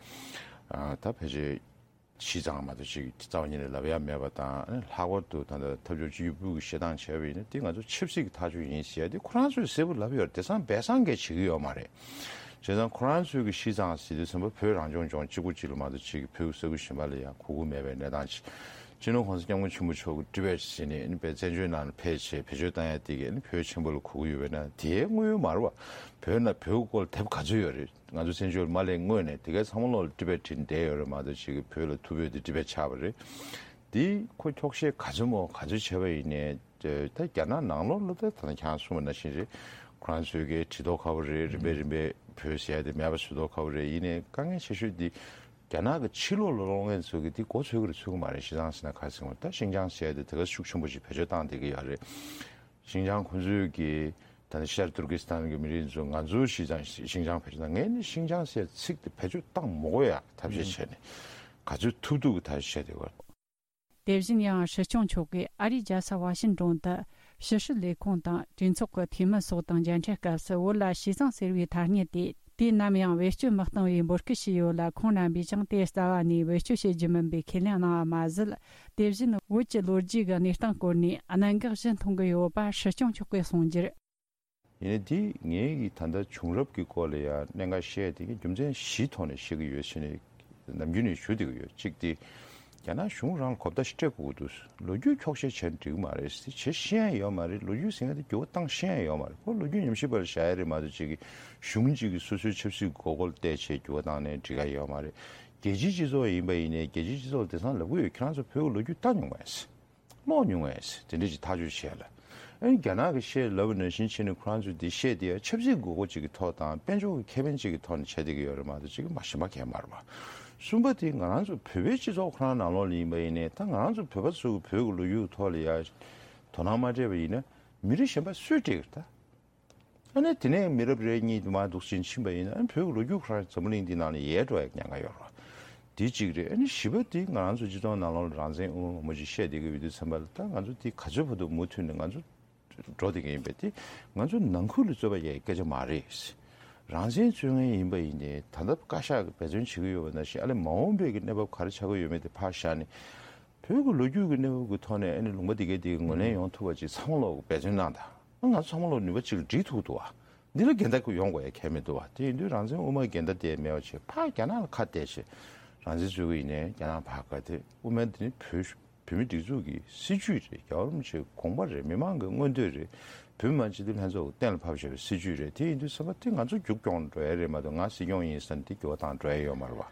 ཨ། ད་ཕལ་ཆེར་ཞི་ཙང་མ་གཏོགས་ཅིག་རྩ་བ་ཉིད་ནས་ལབ་ཡ་མེད་པ་དང་། ཨ་ནི་ལྷག་པར་དུ་ད་ལྟ་འཐབ་ཕྱོགས་གཅིག་གྱུར་པུའུ་གིས་བཤད་སྟངས་བྱས་པ་ཡིན་ན། དེ་ང་ཚོ་ཆབ་སྲིད་ཀྱི་ཐག་གཅོད་ཡིན་ཟེར་ཡ་དེ་ཁོ་རང་ཚོས་གསལ་པོ་ལབ་ཡོད་རེད། དེང་སང་སྦས་གསང་གིས་བྱེད་ཀྱི་ཡོད་མ་རེད། བྱས་ཙང་ཁོ་རང་ཚོའི་གི་ཤི་ཙང་ཟེར་དུས་ཙམ་པ་བོད་རང་སྐྱོང་ལྗོངས་གཅིག་པུ་གཅིག་ལ་མ་གཏོགས་གཅིག་གི་བོད་ཀྱི་ས་ཁུལ་གཞན་པ་ལ་ཡང་གོ་གི་མེད་པའི་གནས་སྟངས་ཅིག་སྤྱི་ནོར་༸གོང་ས་༸སྐྱབས་མགོན་ཆེན་པོ་མཆོག་གི་ཊི་བེཊ་ཟེར་ནས་ཨ་ནི་བཙན་བྱོལ་ནང་ལ་ཕེབས་བྱས་བེད་སྤྱོད་བཏང་ཡ་དེ་གི་ཨ་ནི་བོད་ཆེན་པོ་ལ་གོ་གི་ཡོད་པས་ན། དེའི་དངོས་ཡོད་མ་རེད་བ། བོད་ན་བོད་ཀྱི་སྐོར་ལ་དེབ་ག་ཚོད་ཡོད་རེད། ང་ཚོ་བཙན་བྱོལ་མ་སླེབས་སྔོན་ནས་དེ་གའི་ཚང་མ་ལོག་ལ་ཊི་བེཊ་བྲིས་བསྡད་ཡོད་རེད་མ་གཏོགས་གཅིག་གི་བོད་ལ་ཐུ་བྷོད་དེ་ཊི་བེཊ་ཆགས་པ་རེད། དེ་ཁོ་འཁྱོག་བཤད་ག་ཚོད་མོ་ག་ཚོད་བྱས་པ་ཡིན་ནའི། ད་རྒྱ་ནག་ནང་ལོགས་ལ་ད་ད་ནི་ཁྱེད་རང་གསུངས་པ་ནང་བཞིན་རེད། ཁོ་རང་ཚོའི་གི་བྲིས་ཐོ་ཁ་པོ་རེད། རིམ་པས་རིམ་པས་བོད་ཟེར་ཡ་དེ་མེད་པ་བཟོ་ཐོ་ཁ་པོ་རེད། ཡིན་ནའི་དཀའ་ངལ་ཆེ་ཤོས་དེ་རྒྱ་ནག་གི་ཕྱི་ལོགས་ལ་ལོག་མཁན་ཚོ་གི་དེ་མགོ་ཚོད་ཀྱི་རེད་ཚོད་ཀྱི་མ་རེད། ཤི་ཙང་ཟེར་ན་ག་རེ་ཟེར་དགོས་རེད། ད་ཤིན་ཅང་ཟེར་ཡ་དེ་དེ་ག་ཤུགས་ཆེན་པོ་ཞིག་བེད་སྤྱོད་བཏང་བསྡད་ཀྱི་ཡོད་རེད། ཤིན་ཅང་ཁོ་ཚོའི་གི་ད་ནི་ཤར་ཏུར་ཀི་སི་ཐན་གི་མི་རིགས་ཚོ་ང་ཚོའི་ཤི་ཙང་ཤིན་ཅང་བེད་སྤྱོད་བཏང་། ངས་ནི་ཤིན་ཅང་ཟེར་ཚིག་དེ་བེད་སྤྱོད་བཏང་མི་དགོས་ཡ་ཐབས་ཤེས་བྱས་ནས་ག་ཚོད་ཐུབ་ཐུབ་ཀྱི་ཐབས་ཤེས་བྱས་བསྡད་ཡོད་རེད། དེ་བཞིན་ཡང་སྲིད་སྐྱོང་མཆོག་གིས་ཨ་རིའི་རྒྱལ་ས་ཝ་ཤིན་ཏོན་དུ་ཕྱི་སྲིད་ལས་ཁུངས་དང་གྲོས་ཚོགས་ཀྱི་འཐུས་མི་སོགས་དང་མཇལ་འཕྲད་སྐབས་སུ་བོད་ལ་ཤི་ཙང་ཟེར་བའི་ཐ་སྙད་དེ་དུས་ནམ་ཡང་བེད་སྤྱོད་མི་གཏང་བའི་འབོད་སྐུལ་ཞུས་ཡོད་ལ། ཁོང་རྣམ་པས་ཀྱང་དེ་རྩ་བ་ནས་བེད་སྤྱོད་བྱེད་རྒྱུ་མིན་པའི་ཁས་ལེན་གནང་བ་མ་ཟད། དེ་བཞིན་བོད་ཀྱི་ལོ་རྒྱུས་ཀྱི་གནས་སྟངས་སྐོར་ནས་གནད་འགག་བཞི་མཐོང་གི་ཡོད་པ་སྲིད་སྐྱོང་མཆོག་གིས་གསུངས་རྒྱུར། ཡིན་ནའི་འདི་ངའི་གི་ད་ལྟ་བྱུང་རབས་ཀྱི་སྐོར་ལ་ཡང་གནད་འགག་བཤད་དེ་གི་རྒྱུ་མཚན་བཞིའི་ཐོག་ནས་བཤད་ཀྱི་ཡོད་ཟེར་ནས་ནམ་རྒྱུན་ནས་ཞུ་བསྡད་ཀྱི་ཡོད། གཅིག་དེ་རྒྱ་ནག་གཞུང་རང་ལ་གོ་བརྡ་ཞིག་སྤྲད་དགོས་ཀྱི་འདུག་ལོ་རྒྱུས་འཁྱོག་བཤད་བྱས་ན་འགྲིག་གི་མ་རེད། དེ་བྱེད་ཤེས་ཡ་ཡོད་མ་རེད། ལོ་རྒྱུས་ཟེར་མཁན་དེ་འགྱུར་བ་བཏང་ཤེས་ཡ་ཡོད་མ་རེད། ཁོ་ལོ་རྒྱུས་ཉམས་ཞིབ་པ་ལ་བཞག་ཡ་རེད་མ་གཏོགས་གཅིག་གི་གཞུང་གཅིག་གི་སོ་སོའི་ཆབ་སྲིད་དགོས་མཁོ་ལ་བལྟས་བྱས་འགྱུར་བ་བཏང་ནས་འགྲིག་ག་ཡོད་མ་རེད། རྒྱལ་སྤྱིའི་སྤྱི་ཚོགས་ཡིན་པ་ཡིན་ནའི་རྒྱལ་སྤྱིའི་སྤྱི་ཚོགས་ལ་དེང་སང་ལབ་ཀྱི་ཡོད། ཁྱེད་རང་ཚོ་བོད་ཀྱི་ལོ་རྒྱུས་ལྟ་མྱོང་མེད། ཀློག་མྱོང་བས་དེ་འདྲ་ཅིག་ཐག་གཅོད་བྱས་ལ། ཨ་ནི་རྒྱ་ནག་གི་བཤད་ལབ་པ་ནང་བཞིན་བྱས་ནས་ཁོ་རང་ཚོས་འདི་བཤད་དེ་ཡང་ཆབ་སྲིད་དགོས་མཁོ་ཅིག་གི་ཐོག་དང་དཔལ་འབྱོར་གྱི་ཁེ་ཕན་ཅིག་གི་ཐོག་ནས་བྱས་བསྡད་ཀྱི་ཡོད་རེད་མ་གཏོགས་ཅིག་མ་གཞན་པ་གང་ཡང་མ་རེད་པ། གསུམ་པ་དེ་ང་རང་ཚོ་བོད་པའི་སྤྱི་ཚོགས་ཁོ་རང་ནང་ལོགས་ལ་ཡིན་པ་ཡིན་ནའི་ད་ང་རང་ཚོ་བོད་པ་ཚོ་གི་བོད་ཀྱི་ལོ་རྒྱུས་ཀྱི་ཐོག་ལ་ཡང་དོ་སྣང་མ་སྤྲད་པ་ཡིན་ན་མི་རིགས་གཞན་པ་སུས་སྤྲད་ཀྱི་རེད་ད། ཨ་ནི་དེ་ནས་མི་རབས་རེ་གཉིས་དུ་མ་འདུག་ཕྱིན་ཕྱིན་པ་ཡིན་ན་ཨ་ནི་བོད་ཀྱི་ལོ་རྒྱུས་ཁོ་རང་འཛམ་བུ་གླིང་འདི་ནང་ལ་ཡལ་འགྲོ་ཡག་ཉེན་ཁ་ཡོད་རེད། དེ་གཅིག་རེད། ཨ་ནི་བཞི་པ་དེ་ང་རང་ཚོ་སྤྱི་ཚོགས་ནང་ལོགས་ལ་རང་བཙན་དབུ་མ་མང་པོ་ཅིག་བཤད་བསྡད་ཀྱི་ཡོད་དུས་ཙམ་པ་ལ་ད་ང་ཚོ་དེ་ག་ཚོད་བར་དུ་མུ་མཐུད་ནས་ང་ཚོ་འགྲོ་བསྡད་ཀྱི་ཡིན་པས་དེ་ང་ཚོ་ནང་ཁུལ་ལ་རྩོད་པ་ཡག་སྐད་ཆ་མ་རེད། རང་བཙན་རྩོད་མཁན་ཡིན་པ་ཡིན་ནའི་ད་ལྟ་བཀའ་ཤག་གིས་འབད་བརྩོན་བྱེད་ཀྱི་ཡོད་པ་ནང་བཞིན་ཨ་ལས་མ་འོངས་པའི་གི་གནས་བབ་ག་རེ་ཆགས་ཀྱི་ཡོད་མེད་དེ་ཕར་བཞག་ནས། བོད་ཀྱི་ལོ་རྒྱུས་ཀྱི་གནས་བབ་ཀྱི་ཐོག་ནས་ཨ་ནི་ལུང་པ་འདི་གའི་འདི་གའི་ངོས་ལེན་ཡོང་ཐུབ་པ་ཅིག་ཚང་མ་ལོག་འབད་བརྩོན་གནང་དང་། ང་ཚོ་ཚང་མ་ལོག་ནུས་པ་ཅིག་ལ་སྒྲིལ་ཐུབ་འདུག་བ། འདི་ལ་འགལ་ཟླ་ཡོང་དགོས་ཡ་གལ་མི་འདུག་བ། དེ་ཡིན་དུས་རང་བཙན་དབུ་མའི་འགལ་ཟླ་དེ་མེད་པ་བྱས་ཕར་རྒྱ་ནག་ལ་ཁ་གཏད་བྱས་རང་བཙན་རྩོད་ཀྱི་ཡིན་ནའི་རྒྱ་ནག་ཕར་ཁ་གཏད། དབུ་མའི་འདི་ནི་བོད་བོད་མི་སྒྲིག་འཛུགས་ཀྱི་སྲིད་ཇུས་རེད། རྒྱལ་བ་རིན་པོ་ཆེའི་དགོངས་པ་རེད། མི་མང་གི་མངོན་འདོད་རེད། བོད་མི་མང་སྤྱི་འཐུས་ལྷན་ཚོགས་ཀྱིས་གཏན་ལ་ཕབ་བཞག་པའི་སྲིད་ཇུས་རེད། དེ་ཡིན་དུས་ཚང་མ་དེ་ང་ཚོ་རྒྱུགས་སྐྱོང་འགྲོ་ཡ་རེད་མ་གཏོགས་ང་སྲིད་སྐྱོང་ཡིན་ཟེར་ནས་དེ་འགྱུར་བ་བཏང་འགྲོ་ཡ་ཡོད་མ་རེད་བ།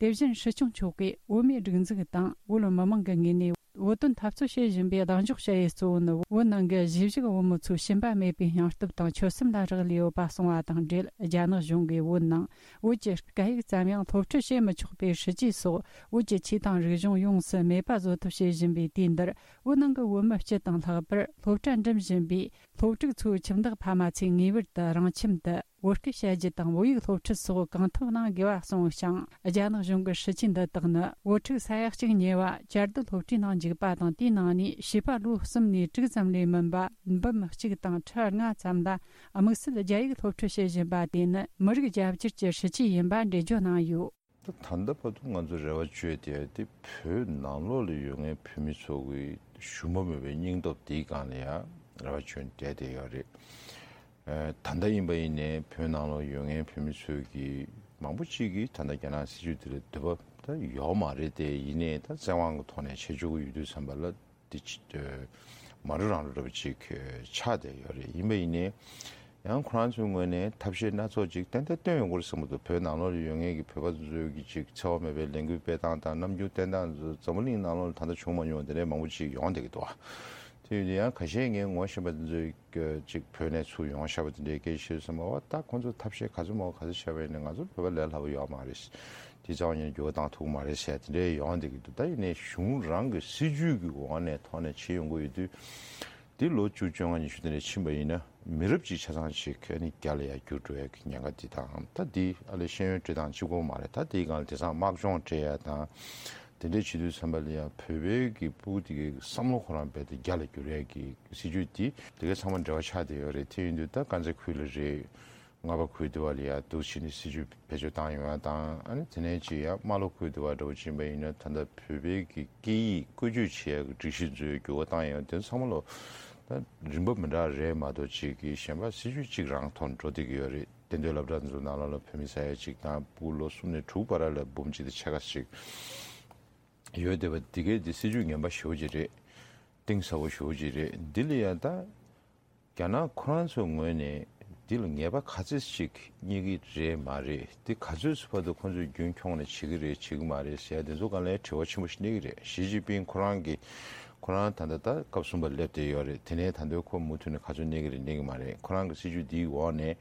དེ་བཞིན་སྲིད་སྐྱོང་མཆོག་གིས་དབུ་མའི་སྒྲིག་འཛུགས་དང་བོད་མི་མང་གི་ངོས་ནས་བོད་དོན་འཐབ་རྩོད་བྱེད་བཞིན་པའི་གདེང་འཇོག་བྱ་ཡུལ་གཙོ་བོ་ནི་བོད་ནང་གི་གཞིས་བཞུགས་བོད་མི་ཚོའི་ཞུམ་པ་མེད་པའི་སྙིང་སྟོབས་དང་ཆོད་སེམས་ལ་རག་ལས་ཡོད་པ་གསུངས་པ་དང་འབྲེལ། རྒྱ་ནག་གཞུང་གིས་བོད་ནང་བོད་ཀྱི་སྐད་ཡིག་ཙམ་ཡང་སློབ་ཁྲིད་བྱེད་མི་ཆོག་པའི་སྲིད་ཇུས་སོགས་བོད་ཀྱི་ཆོས་དང་རིག་གཞུང་ཡོངས་སུ་མེད་པ་བཟོ་ཐབས་བྱེད་བཞིན་པའི་དུས་འདིར། བོད་ནང་གི་བོད་མི་སྤྱི་དང་ལྷག་པར་སློབ་གྲྭ་འགྲིམ་བཞིན་པའི་སློབ་ཕྲུག་ཚོའི་ཁྱིམ་བདག་ཕ་མ་ཚོས་ངེས་པར་དུ་རང་ཁྱིམ་དུ་བོད་སྐད་བཤད་རྒྱུ་དང་བོད་ཡིག་སློབ་ཁྲིད་སོགས་གང་ཐུབ་གནང་དགོས་པ་གསུངས་ཤིང་། རྒྱ་ནག་གཞུང་གི་སྲིད་ཇུས་འདི་དག་ནི་བོད་ཕྲུག་ས་ཡ་གཅིག་ཉེ་བ་བཅའ་སྡོད་སློབ་གྲྭའི་ནང་འཇུག་པ་དང་། དེའི་ནང་ནས་བྱིས་པ་ལོ་གསུམ་ནས་དྲུག་ཙམ་ལས་མིན་པ་འབུམ་གཅིག་དང་ཁྲི་ལྔ་ཙམ་ལ་དམིགས་བསལ་རྒྱ་ཡིག་སློབ་ཁྲིད་བྱེད་བཞིན་པ་དེ་ནི་མི་རིགས་རྒྱ་བསྒྱུར་གྱི་སྲིད་ཇུས་ཡིན་པ་འགྲེལ་བརྗོད་གནང་ཡོད། ད་ད་ལྟ་བར་དུ་ང་ཚོ་རེ་བ་བཅོལ་དེ་དེ་བོད་ནང་ལོགས་ལ་ཡོད་མཁན་བོད་མི་ཚོ་གི་ཞུམ་པ་མེད་པའི་སྙིང་སྟོབས་དེའི་སྒང་ལ་ཡང་རེ་བ་བཅོལ་བསྡད་དེ་ཡོད་རེད། ཨ་ད་ལྟ་ཡིན་པ་ཡིན་ནའི་བོད་ནང་ལོགས་ཡོད་མཁན་བོད་མི་ཚོས་ཀྱི་མང་པོ་ཅིག་གིས་ད་ལྟ་རྒྱ་ནག་སྲིད་ཇུས་དེ་ལ་འདོད་པ་ད་ཡོད་མ་རེད་དེ། ཡིན་ནའི་ད་བཙན་དབང་གི་ཐོག་ནས་བྱེད་ཆོག་གི་ཡོད་དུས་ཙམ་པ་ལ། དེ་ཅི་ཨ་མ་རུ་རང་རུ་འདྲ་པོ་ཅིག་ཨ་ཆགས་བསྡད་ཡོད་རེད། ཡིན་པ་ཡིན་ནའི་ཡང་ཁོ་རང་ཚོའི་ངོས་ནས་ཐབས་ཤེས་སྣ་ཚོགས་ཅིག་ཏན་ཏན་བཏོན་ཡོང་གི་རེད་བསམ་གྱི་འདུག་བོད་ནང་ལོགས་ལ་ཡོད་མཁན་གྱི་བོད་པ་ཚོའི་གི་ཅིག་འཚེ་བ་མེད་པའི་ལས་འགུལ་སྤེལ་སྟངས་དང་རྣམ་འགྱུར་བསྟན་སྟངས་ཚོ་འཛམ་བུ་གླིང་ནང་ལོགས་ལ་ད་ལྟ་བྱུང་མ་མྱོང་དེ་འདྲའི་མང་པོ་ཅིག་ཡོང་བསྡད་ཀྱི་འདུག་དེ་ཡིན་དུས་ཡང་ཁ་ཤས་ངས་ངོ་ཤེས་པ་དེ་ཚོའི་གི་ཅིག་བོད་ནས་ཚུར་ཡོང་བཞག་པ་དེ་འདྲའི་སྐད་ཆ་བཤད་དུས་ཙམ་པ་ད་ཁོང་ཚོ་ཐབས་ཤེས་ག་ཚོད་མང་པོ་ག་ཚོད་བྱས་པ་ཡིན་ནའི་ང་ཚོ་བོད་པ་ལས་སླ་པོ་ཡོད་མ་རེད། དེ་རྩ་བ་ཉིད་ནས་འགྱུར་བ་བཏང་ཐུབ་ཀྱི་མ་རེད་ཟེར་དེ་འདྲའི་ཡོང་བསྡད་ཀྱི་འདུག་ད་ཡིན་ནའི་གཞུང་རང་གི་སྲིད་ཇུས་ཀྱི་འོག་ནས་ཐོག་ནས་བྱེད་ཡོང་གི་ཡོད་དུས། འདི་ལོ་བཅུ་བཅོ་ལྔ་ཉི་ཤུ་དེ་འདྲ་ཕྱིན་པ་ཡིན་ན་མི་རབས་གཅིག་ཆ་ཚང་ཞིག་ཨ་ནི་རྒྱ་ལ་ཡར་བསྒྱུར་འགྲོ་ཡ་གི་ཉེན་ཁ་འདི་དང་ད་འདི་ཨ་ལས་ཤེས་ཡོན་སྤྲོད་སྟངས་གཅིག་པོ་མ་རེད། ད་དེའི་སྒང་ལ་དེང་སང་དམག་སྦྱོང་སྤྲད་ཡ་དང་དེ་འདྲའི་བྱེད་དུས་ཙམ་པ་ལ་ཡང་བོད་པའི་གི་ཕྲུ་གུ་དེ་གའི་བསམ་བློ་ཁོ་རང་རྦད་དེ་རྒྱ་ལ་བསྒྱུར་ཡ་གི་སྲིད་ཇུས་འདི་དེ་གའི་ཚང་མ་འབྲེལ་བ་ཆགས་བསྡད་ཡོད་རེད། དེ་ཡིན་དུས་ད་དཀར་མཛེས་ཁུལ་ལ་རེད། རྔ་པ་ཁུལ་དེ་བ་ལ་ཡ་འདུག་ཕྱིན་ནས་སྲིད་ཇུས་བེད་སྤྱོད་བཏང་ཡོང་ཡ་དང་ཨ་ནི་དེ་ནས་ཅིག་ཡ་རྨ་ལྷོ་ཁུལ་དེ་བ་འདྲ་བོ་ཕྱིན་པ་ཡིན་ན་ད་ལྟ་བོད་པའི་གི་སྐད་ཡིག་བཀོལ་སྤྱོད་བྱེད་ཡ་གི་སྒྲིག་གཞི་ཚོའི་འགྱུར་བ་བཏང་ཡོང་དེ་ཚང་མ་ལོ་ད་རིམ་པ་མི་འདྲ་རེད་མ་གཏོགས་ཅིག་གི་གཞན་པ་སྲིད་ཇུས་གཅིག་རང་ཐོག་འགྲོ་བསྡད་ཀྱི་ཡོད་རེད། གཏན་སྡོད་སློབ་གྲྭ་ཚོ་ནང་ལོགས་ལ་བོད་མི་ས་ཡ་གཅིག་དང་ཕྲུ་གུ་ལོ་གསུམ་ནས་དྲུག་བར་ལ་འབུམ་གཅིག་དང་ཕྱེད་ཀ་ཞིག་ཡོད་བསྡད་པ་འདི་གས་འདི་སྲིད་ཇུས་ངན་པ་ཞེ་པོ་ཅིག་རེད། གཏིང་ཟབ་པོ་ཞེ་པོ་ཅིག་རེད། འདི་ལ་ཡང་ད་རྒྱ་ནག་ཁོ་རང་ཚོའི་ངོས་ནས་འདི་ལ་ངེས་པ་ག་ཚོད་ཅིག་རྙེད་ཀྱི་རེད་མ་རེད། འདི་ག་ཚོད་ཅིག་བར་དུ་ཁོ་ཚོས་རྒྱུན་འཁྱོངས་ནས་བྱེད་ཀྱི་རེད་བྱེད་ཀྱི་མ་རེད་ཟེར་ཡ་དེ་ཚོ་སྒང་ལ་དྲི་བ་ཆེན་པོ་ཞིག་གནས་ཀྱི་རེད། ཞི་ཅིན་ཕིང་ཁོ་རང་གིས་ཁོ་རང་ད་ལྟ་ད་སྐབས་གསུམ་པ་སླེབས་བསྡད་ཡོད་རེད། དེ་ནས་ད་ལྟ་ཁོ་མུ་མཐུད་ནས་ག་ཚོད་གནས་ཀྱི་རེད་གནས་ཀྱི་མ་རེད། ཁོ་རང་གི་སྲིད་ཇུས་འདིའི་འོག་ནས་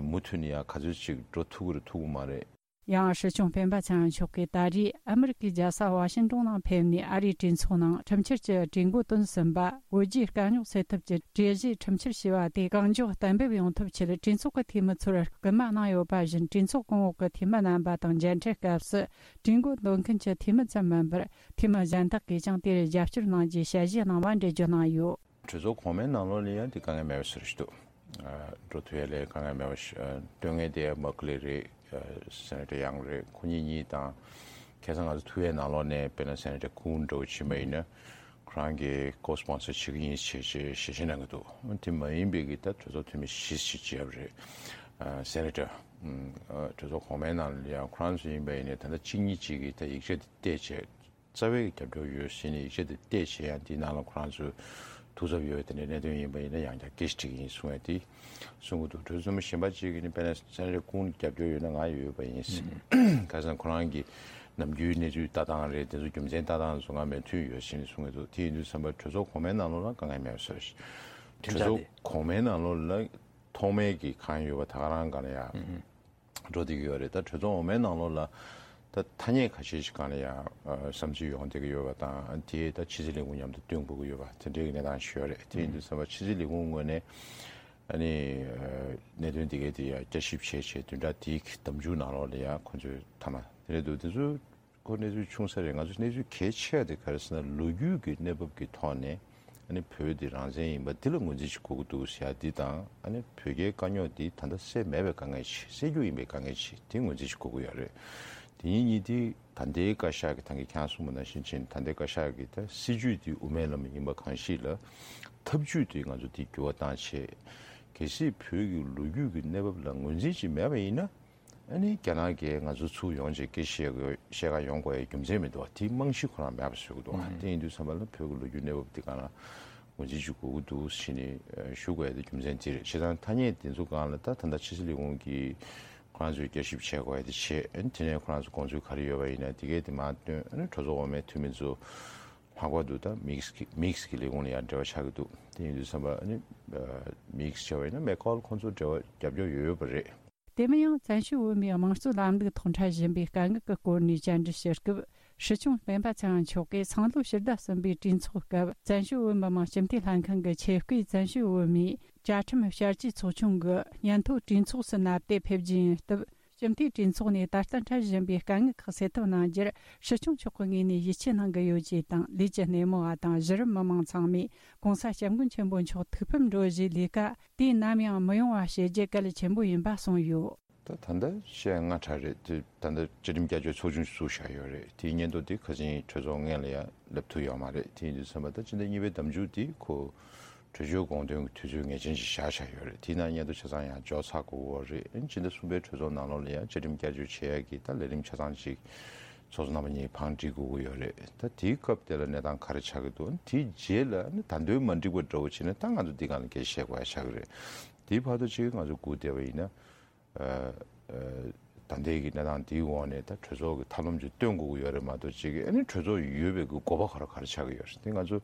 མུ་མཐུད་ནས་ཡང་ག་ཚོད་ཅིག་འགྲོ་ཐུབ་ཀྱི་རེད་ཐུབ་ཀྱི་མ་རེད། ཡང་སྲིད་སྐྱོང་སྤེན་པ་ཚེ་རིང་མཆོག་གིས་ད་རེས་ཨ་མི་རི་ཀའི་རྒྱལ་ས་ཝ་ཤིང་ཏོན་ནང་ཕེབས་ནས་ཨ་རིའི་གྲོས་ཚོགས་ནང་ཁྲིམས་འཆར་གྱི་གྲོས་འགོ་བཏོན་ཟིན་པ། བོད་རྒྱའི་དཀའ་རྙོག་སེལ་ཐབས་ཀྱི་གྲོས་གཞིའི་ཁྲིམས་འཆར་ཞེས་པ་དེ་གང་མགྱོགས་གཏན་འབེབས་ཡོང་ཐབས་ཆེད་གྲོས་ཚོགས་ཀྱི་འཐུས་མི་ཚོར་སྐུལ་མ་གནང་ཡོད་པ་བཞིན། གྲོས་ཚོགས་གོང་འོག་གི་འཐུས་མི་རྣམ་པ་དང་མཇལ་འཕྲད་སྐབས་སུ་གྲོས་འགོ་འདོན་མཁན་གྱི་འཐུས་མི་ཙམ་མིན་པར་འཐུས་མི་གཞན་དག་གིས་ཀྱང་དེར་རྒྱབ་སྐྱོར་གནང་རྒྱུའི་ཞལ་བཞེས་གནང་བ་འགྲེལ་བརྗོད་གནང་ཡོད། གྲོས་ཚོགས་གོང་མའི་ནང་ལོགས་ལ་ཡང་དེ་དཀའ་ངལ་མེད་པ་ཞིག་རེད་འདུག་འགྲོ་ཐུབ་ཡ་ལས་དཀའ་ངལ་མེད་པ་ཞིག་སྟོན་མཁན་དེ་མག་ལེ་རེད། སེ་ནེ་ཊར་ཡང་རེད། ཁོ་གཉིས་གཉིས་དང་ཁ་སང་ང་ཚོ་ཐུག་ཡའི་ནང་ལོགས་ནས་དཔེར་ན་སེ་ནེ་ཊར་ཀུན་འདྲ་བོ་ཕྱིན་པ་ཡིན་ན་ཁོ་རང་གིས་ཀོ་སི་པོན་སར་བྱེད་ཀྱི་ཡིན་ཞེས་ཞེས་ཞེས་གནང་གི་འདུག་དེ་མ་ཡིན་པའི་གི་ད་གྲོས་ཚོགས་འཐུས་མི་བཞི་ཞིག་བརྗེས་པ་རེད། སེ་ནེ་ཊར་གྲོས་ཚོགས་གོང་མའི་ནང་ལ་ཡང་ཁོ་རང་ཚོ་ཡིན་པ་ཡིན་ནའི་ད་ལྟ་གཅིག་གཉིས་གཅིག་གིས་ད་ཡིག་ཆ་དེ་བལྟས་བྱས། རྩ་བའི་རྒྱབ་སྐྱོར་ཡོད་ཟེར་ནས་ཡིག་ཆ་དེ་བལྟས་བྱས་ཡང་དེའི་ནང་ལ་ཁོ་རང་ཚོའི་ཐུགས་འཚབ་ཡོད་དེ་འདྲའི་གནད་དོན་ཡིན་པ་ཡིན་ན་ཡང་བསྐྱར་སྐད་ཆ་དྲིས་ཀྱི་ཡིན་གསུང་བས་དེ་གསུང་གི་འདུག་གྲོས་ཚོགས་འཐུས་མི་གཞན་པ་ཅིག་གིས་ནི་དཔེར་ན་སེ་ནེ་ཊར་ཀུན་རྒྱབ་སྐྱོར་ཡོད་ན་ང་ཡོད་པ་ཡིན་ཟེར། ཁ་སང་ཁོ་རང་གིས་ནམ་རྒྱུན་གནས་ཚུལ་ལྟ་སྟངས་རེད་དེ་ཚོ་རྒྱུ་མཚན་ལྟ་སྟངས་ཚོ་ང་མོས་མཐུན་ཡོད་ཟེར་ནས་གསུང་གི་འདུག་དེ་ཡིན་དུས་ཙམ་པ་གྲོས་ཚོགས་གོང་མའི་ནང་ལོགས་ལ་དཀའ་ངལ་མེད་པ་བཟོས། གྲོས་ཚོགས་གོང་མའི་ནང་ལོགས་ལ་ཐོག་མའི་གི་གང་ཡོད་པ་ད་ག་རང་ག་ལ་ཡ། འགྲོ་བསྡད་ཀྱི་ཡོད་རེད། ད་གྲོས་ཚོགས་འོག་མའི་ནང་ལོགས་ལ་ད་ཐ་སྙད་ཁ་ཤས་ཤིག་སྒང་ལ་ཡང་བསམ་ཚུལ་ཡོང་བསྡད་ཀྱི་ཡོད་པ་དང་དེ་ད་ཕྱི་སྲིད་ལས་ཁུངས་མཉམ་དུ་བསྟུན་དགོས་ཀྱི་ཡོད་པ་དེ་འདྲའི་གི་གནས་སྟངས་ཤིག་ཡོད་རེད། དེ་ཡིན་དུས་ཙམ་པ་ཕྱི་སྲིད་ལས་ཁུངས་ངོས་ནས་ཨ་ནི་གནད་དོན་འདི་གའི་དེ་ཡང་བསྐྱར་ཞིབ་བྱས་བྱས་བདུན་ཕྲག་དེའི་གི་ཟླ་མཇུག་ནང་ལོགས་ལ་ཡང་ཁོང་ཚོས་མཐའ་མ་དེ་རེད་འདུག་དེ་ཚོ། ཁོ་གནས་ཚུལ་ཆུང་ས་རེད། ང་ཚོ་གནས་ཚུལ་གལ་ཆེ་བ་དེ་ག་རེ་ཟེར་ན་ལོ་རྒྱུས་ཀྱི་གནས་བབ་ཀྱི་ཐོག་ནས་ཨ་ནི་བོད་འདི་རང་བཙན་ཡིན་པ་འདི་ལ་ངོས་འཛིན་ཞིག་དགོས་ཀྱི་འདུག་ཟེར་ཡ་འདི་དང་ཨ་ནི་བོད་རྒྱའི་དཀའ་རྙོག་འདི་ད་ལྟ་སེལ་མེད་པའི་དཀའ་ངལ་ཆེ་སེལ་རྒྱུ་ཡིན་པའི་དཀའ་ངལ་ཆེ་དེ་ངོས་འཛིན་ཞིག་དགོས་ཀྱི་ཡོད་རེད། དེ་གཉིས་གཉིས་དེ་ད་ལྟའི་བཀའ་ཤག་གི་ད་གིན་ཁྱེད་རང་གསུངས་པ་ནང་བཞིན་ཕྱིན་ད་ལྟའི་བཀའ་ཤག་གི་ད་སྲིད་ཇུས་འདི་དབུ་མའི་ལམ་ཡིན་པ་གང་ཞིག་ལ་ཐབས་ཇུས་འདི་ང་ཚོ་འདི་འགྱུར་བ་བཏང་བྱས་གལ་སྲིད་བོད་ཀྱི་ལོ་རྒྱུས་ཀྱི་གནས་བབ་ལ་ངོས་འཛིན་ཅིག་མེད་པ་ཡིན་ན། ཨ་ནི་རྒྱ་ནག་གིས་ང་ཚོ་ཚུར་ཡོང་བྱས་སྐད་བཤད་དགོས་བཤད་ག་ཡོང་དགོས་ཡའི་རྒྱུ་མཚན་མི་འདུག་བ། དེའི་རྨང་གཞི་ཁོ་རང་མེད་པ་བཟོ་གི་འདུག་བ། དེ་ཡིན་དུས་ཙམ་པ་ལ་བོད་ཀྱི་ལོ་རྒྱུས་གནས་བབ་འདི་ག་ལ་ངོས་འཛིན་ཅིག་དགོས་ཀྱི་འདུག་ཟེར་ནས་ཞུ་དགོས་ཡ་དེ་རྒྱུ་མཚན་དེ་རེད། བྱས་ཙང་ཐ་སྙད་དེ་ཚོ་སྒང་ལ་ད་ད་ལྟ་ཕྱི་སྲིད་ལས་ཁུངས་ཀྱིས་ཁོ་རང་ཚོས་བསྐྱར་ཞིབ་བྱེད་དགོས་ཡ་དེ་བྱེད། ཨ་ནི་དེ་ནས་ཁོ་རང་ཚོ་དགོངས་ཚུལ་ག་རེ་ཡོད་པ་ཡིན་ན་དེ་གས་དེ་མར་བཏོན། ཨ་ནི་གྲོས་ཚོགས་འོག་མའི་འཐུས་མི་ཚོ་ལྷག་པར་དུ་ད་མིག་སི་གི་མིག་སི་གི་ལས་ཁུངས་ལ་ཡང་འབྲེལ་བ་ཆགས་ཀྱི་འདུག་དེ་ཡིན་དུས་ཙམ་པ་ཨ་ནི་མིག་སི་བྱས་པ་ཡིན་ན་མེག་ཁོལ་ཁོང་ཚོ་འབྲེལ་བ་རྒྱབ་སྐྱོར་ཡོད་ཡོད་པ་རེད། དེ་མིན་ཡང་བཙན་བྱོལ་བོད་མིའི་དམངས་གཙོའི་ལམ་ལུགས་ཐོག་འཕྲད་བཞིན་པའི་དཀའ་ངལ་གྱི་སྐོར་ནས་བཅར་འདྲི་ཞུ་སྐབས། སྲིད་སྐྱོང་སྤེན་པ་ཚེ་རིང་མཆོག་གིས་སང་ལོ་ཕྱི་ཟླ་གསུམ་པའི་གྲོས་ཚོགས་སྐབས་བཙན་བྱོལ་བོད་མི་མང་སྤྱི་འཐུས་ལྷན་ཁང་གི་ཆེད་བསྐོས་བཙན་བྱོལ་བོད་མིའི་བཅའ་ཁྲིམས་བསྐྱར་བཅོས་ཚོགས་ཆུང་གི་སྙན་ཐོ་གྲོས་ཚོགས་སུ་མནའ་བསྡད་ཕེབས་རྒྱུ་ཡིན་སྟབས། སྤྱི་འཐུས་གྲོས་ཚོགས་ནས་ད་ལྟ་འཕྲད་བཞིན་པའི་དཀའ་ངལ་ཁག་སེལ་ཐབས་གནང་རྒྱུར་སྲིད་སྐྱོང་མཆོག་གི་ངོས་ནས་ཡིད་ཆེས་གནང་གི་ཡོད་ཅེས་དང་། ལས་ཀྱི་སྣེ་མོ་བ་དང་གཞི་རིམ་མི་མང་ཚང་མས་༸གོང་ས་༸སྐྱབས་མགོན་ཆེན་པོ་མཆོག་ཐུགས་ཕམ་འགྲོ་བཞིའི་ལས་ཀ་དུས་ནམ་ཡང་མི་ཡོང་བ་བྱེད་རྒྱུ་གལ་ཆེན་པོ་ཡིན་པ་གསུངས་ཡོད། ད་ད་ལྟ་བཤད་སྔ་དྲགས་རེད། དེ་ད་ལྟ་བཅའ་ཁྲིམས་བསྐྱར་བཅོས་ཚོགས་ཆུང་བཙུགས་བཞག་ཡོད་རེད། དེའི་སྙན་ཐོ་དེ་ཁ་སང་གྲོས་ཚོགས་སྔོན་ལ་ཡང་ལབ་ཐུབ་ཡོད་མ་རེད། དེ་ཡིན་དུས་ཙམ་པ་ད་ཕྱི་ཟླ་གཉིས་པའི་ཟླ་མཇུག་དེ་ཁོ་གྲོས་ཆོད་དགོངས་དོན་གྱི་དུས་ཚོད་ངེས་ཅན་ཞིག་བཞག་བཞག་ཡོད་རེད། དེའི་ནང་སྙན་ཐོ་ཆ་ཚང་ཡང་འཇོག་ཚར་དགོས་ཀྱི་ཡོད་རེད། ཨ་ནི་ཕྱི་ཟླ་གསུམ་པའི་གྲོས་ཚོགས་ནང་ལོགས་ལ་ཡང་བཅའ་ཁྲིམས་བསྐྱར་བཅོས་བྱེད་ཡག་གི་ད་ལས་རིམ་ཆ་ཚང་ཅིག་ཚོགས་གཙོ་རྣམ་པ་གཉིས་བང་སྒྲིག་དགོས་ཀྱི་ཡོད་རེད། ད་དེའི་སྐབས་དེ་ལ་གནས་སྟངས་ག་རེ་ཆགས་ཀྱི་འདུག་དེའི་རྗེས་ལ་ནི་ད་དུང་མ་འགྲིག་པ་འདྲ་བོ་བྱས་ན་ད་ང་ཚོ་འདི་སྒང་ལ་སྐད་ཆ་བཤད་དགོས་ཡ་ཆགས་ཀྱི་རེད། དེའི་བར་དུ་ཅིག་ང་ཚོ་སྒུག་བསྡད་པ་ཡིན་ན། ཨ་ཨ་ད་ལྟའི་གི་གནས་སྟངས་འདིའི་འོག་ནས་ད་གྲོས་ཚོགས་ཀྱི་ཐབས་ལམ་ཅིག་སྟོན་དགོས་ཀྱི་ཡོད་རེད་མ་གཏོགས་ཅིག་གི་ཨ་ནི་གྲོས་ཚོགས་ཡོད་པའི་གི་དགོས་པ་ག་རེ་ག་རེ་ཆགས་ཀྱི་ཡོད་རེད། དེ་ང་ཚོ་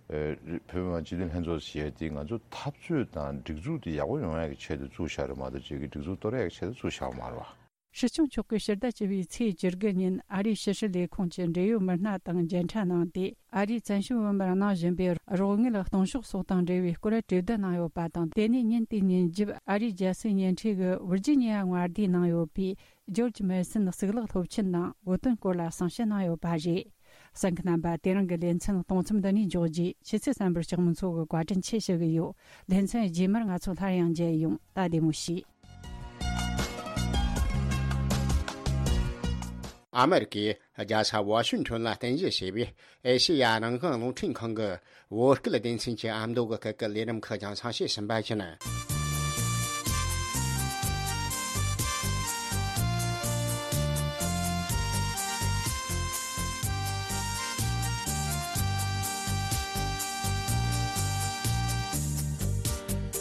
ཨ་བོད་མི་མང་སྤྱི་འཐུས་ལྷན་ཚོགས་ཟེར་ཡ་དེ་ང་ཚོ་འཐབ་རྩོད་དང་སྒྲིག་འཛུགས་དེ་ཡག་པོ་ཡོང་ཡ་གི་ཆེད་དུ་བཙུགས་བཞག་རེད་མ་གཏོགས་ཅིག་གི་སྒྲིག་འཛུགས་གཏོར་ཡ་གི་ཆེད་དུ་བཙུགས་བཞག་པ་མ་རེད་བ། སྲིད་སྐྱོང་མཆོག་གིས་ཕྱི་ཟླ་བཅུ་པའི་ཚེས་བཅུ་དགུ་ཉིན་ཨ་རིའི་ཕྱི་སྲིད་ལས་ཁུངས་ཀྱི་འབྲེལ་ཡོད་མི་སྣ་དང་མཇལ་འཕྲད་གནང་སྟེ། ཨ་རིས་བཙན་བྱོལ་བོད་མིར་གནང་བཞིན་པའི་རོགས་དངུལ་གཏོང་ཕྱོགས་སོགས་དང་འབྲེལ་བའི་སྐོར་གྲོས་བསྡུར་གནང་ཡོད་པ་དང་། དེ་ནས་ཉིན་དེའི་ཉིན་རྒྱབ་ཨ་རིའི་རྒྱལ་སྲིད་བརྙན་འཕྲིན་གྱི་ཝིར་ཇི་ནི་ཡ་མངའ་སྡེའི་ནང་ཡོད་པའི་ཇོརྗ་མེ་སན་གཙུག་ལག་སློབ་ཆེན་ནང་བོད་དོན་སྐོར་ལ་གསུང་བཤད་གནང་ཡོད་པ་རེད། གསན་མཁན་རྣམ་པ། དེ་རིང་གི་ལེ་ཚན་གཏོང་མཚམས་འདི་ནས་འཇོག་རྒྱུ། ཕྱི་ཚེས་གསུམ་པར་ལྕགས་མོ་མཚོ་གིས་བཀའ་དྲིན་ཆེ་ཞུ་གི་ཡོད། ལེ་ཚན་རྗེས་མར་ང་ཚོ་སླར་ཡང་མཇལ་ཡོང་། ད་བདེ་མོ་བྱོས། ཨ་མེ་རི་ཀའི་རྒྱལ་ས་ཝ་ཤིང་ཊོན་ལ་རྟེན་གཞི་བྱས་པའི་ཨེ་ཤེ་ཡ་རང་དབང་རླུང་འཕྲིན་ཁང་གི་བོད་སྐད་སྡེ་ཚན་གྱི་ཨ་མདོ་གི་སྐད་ཀྱི་ལས་རིམ་ཁག་རྒྱང་སྲིང་བྱེད་བཞིན་པ་ཡིན།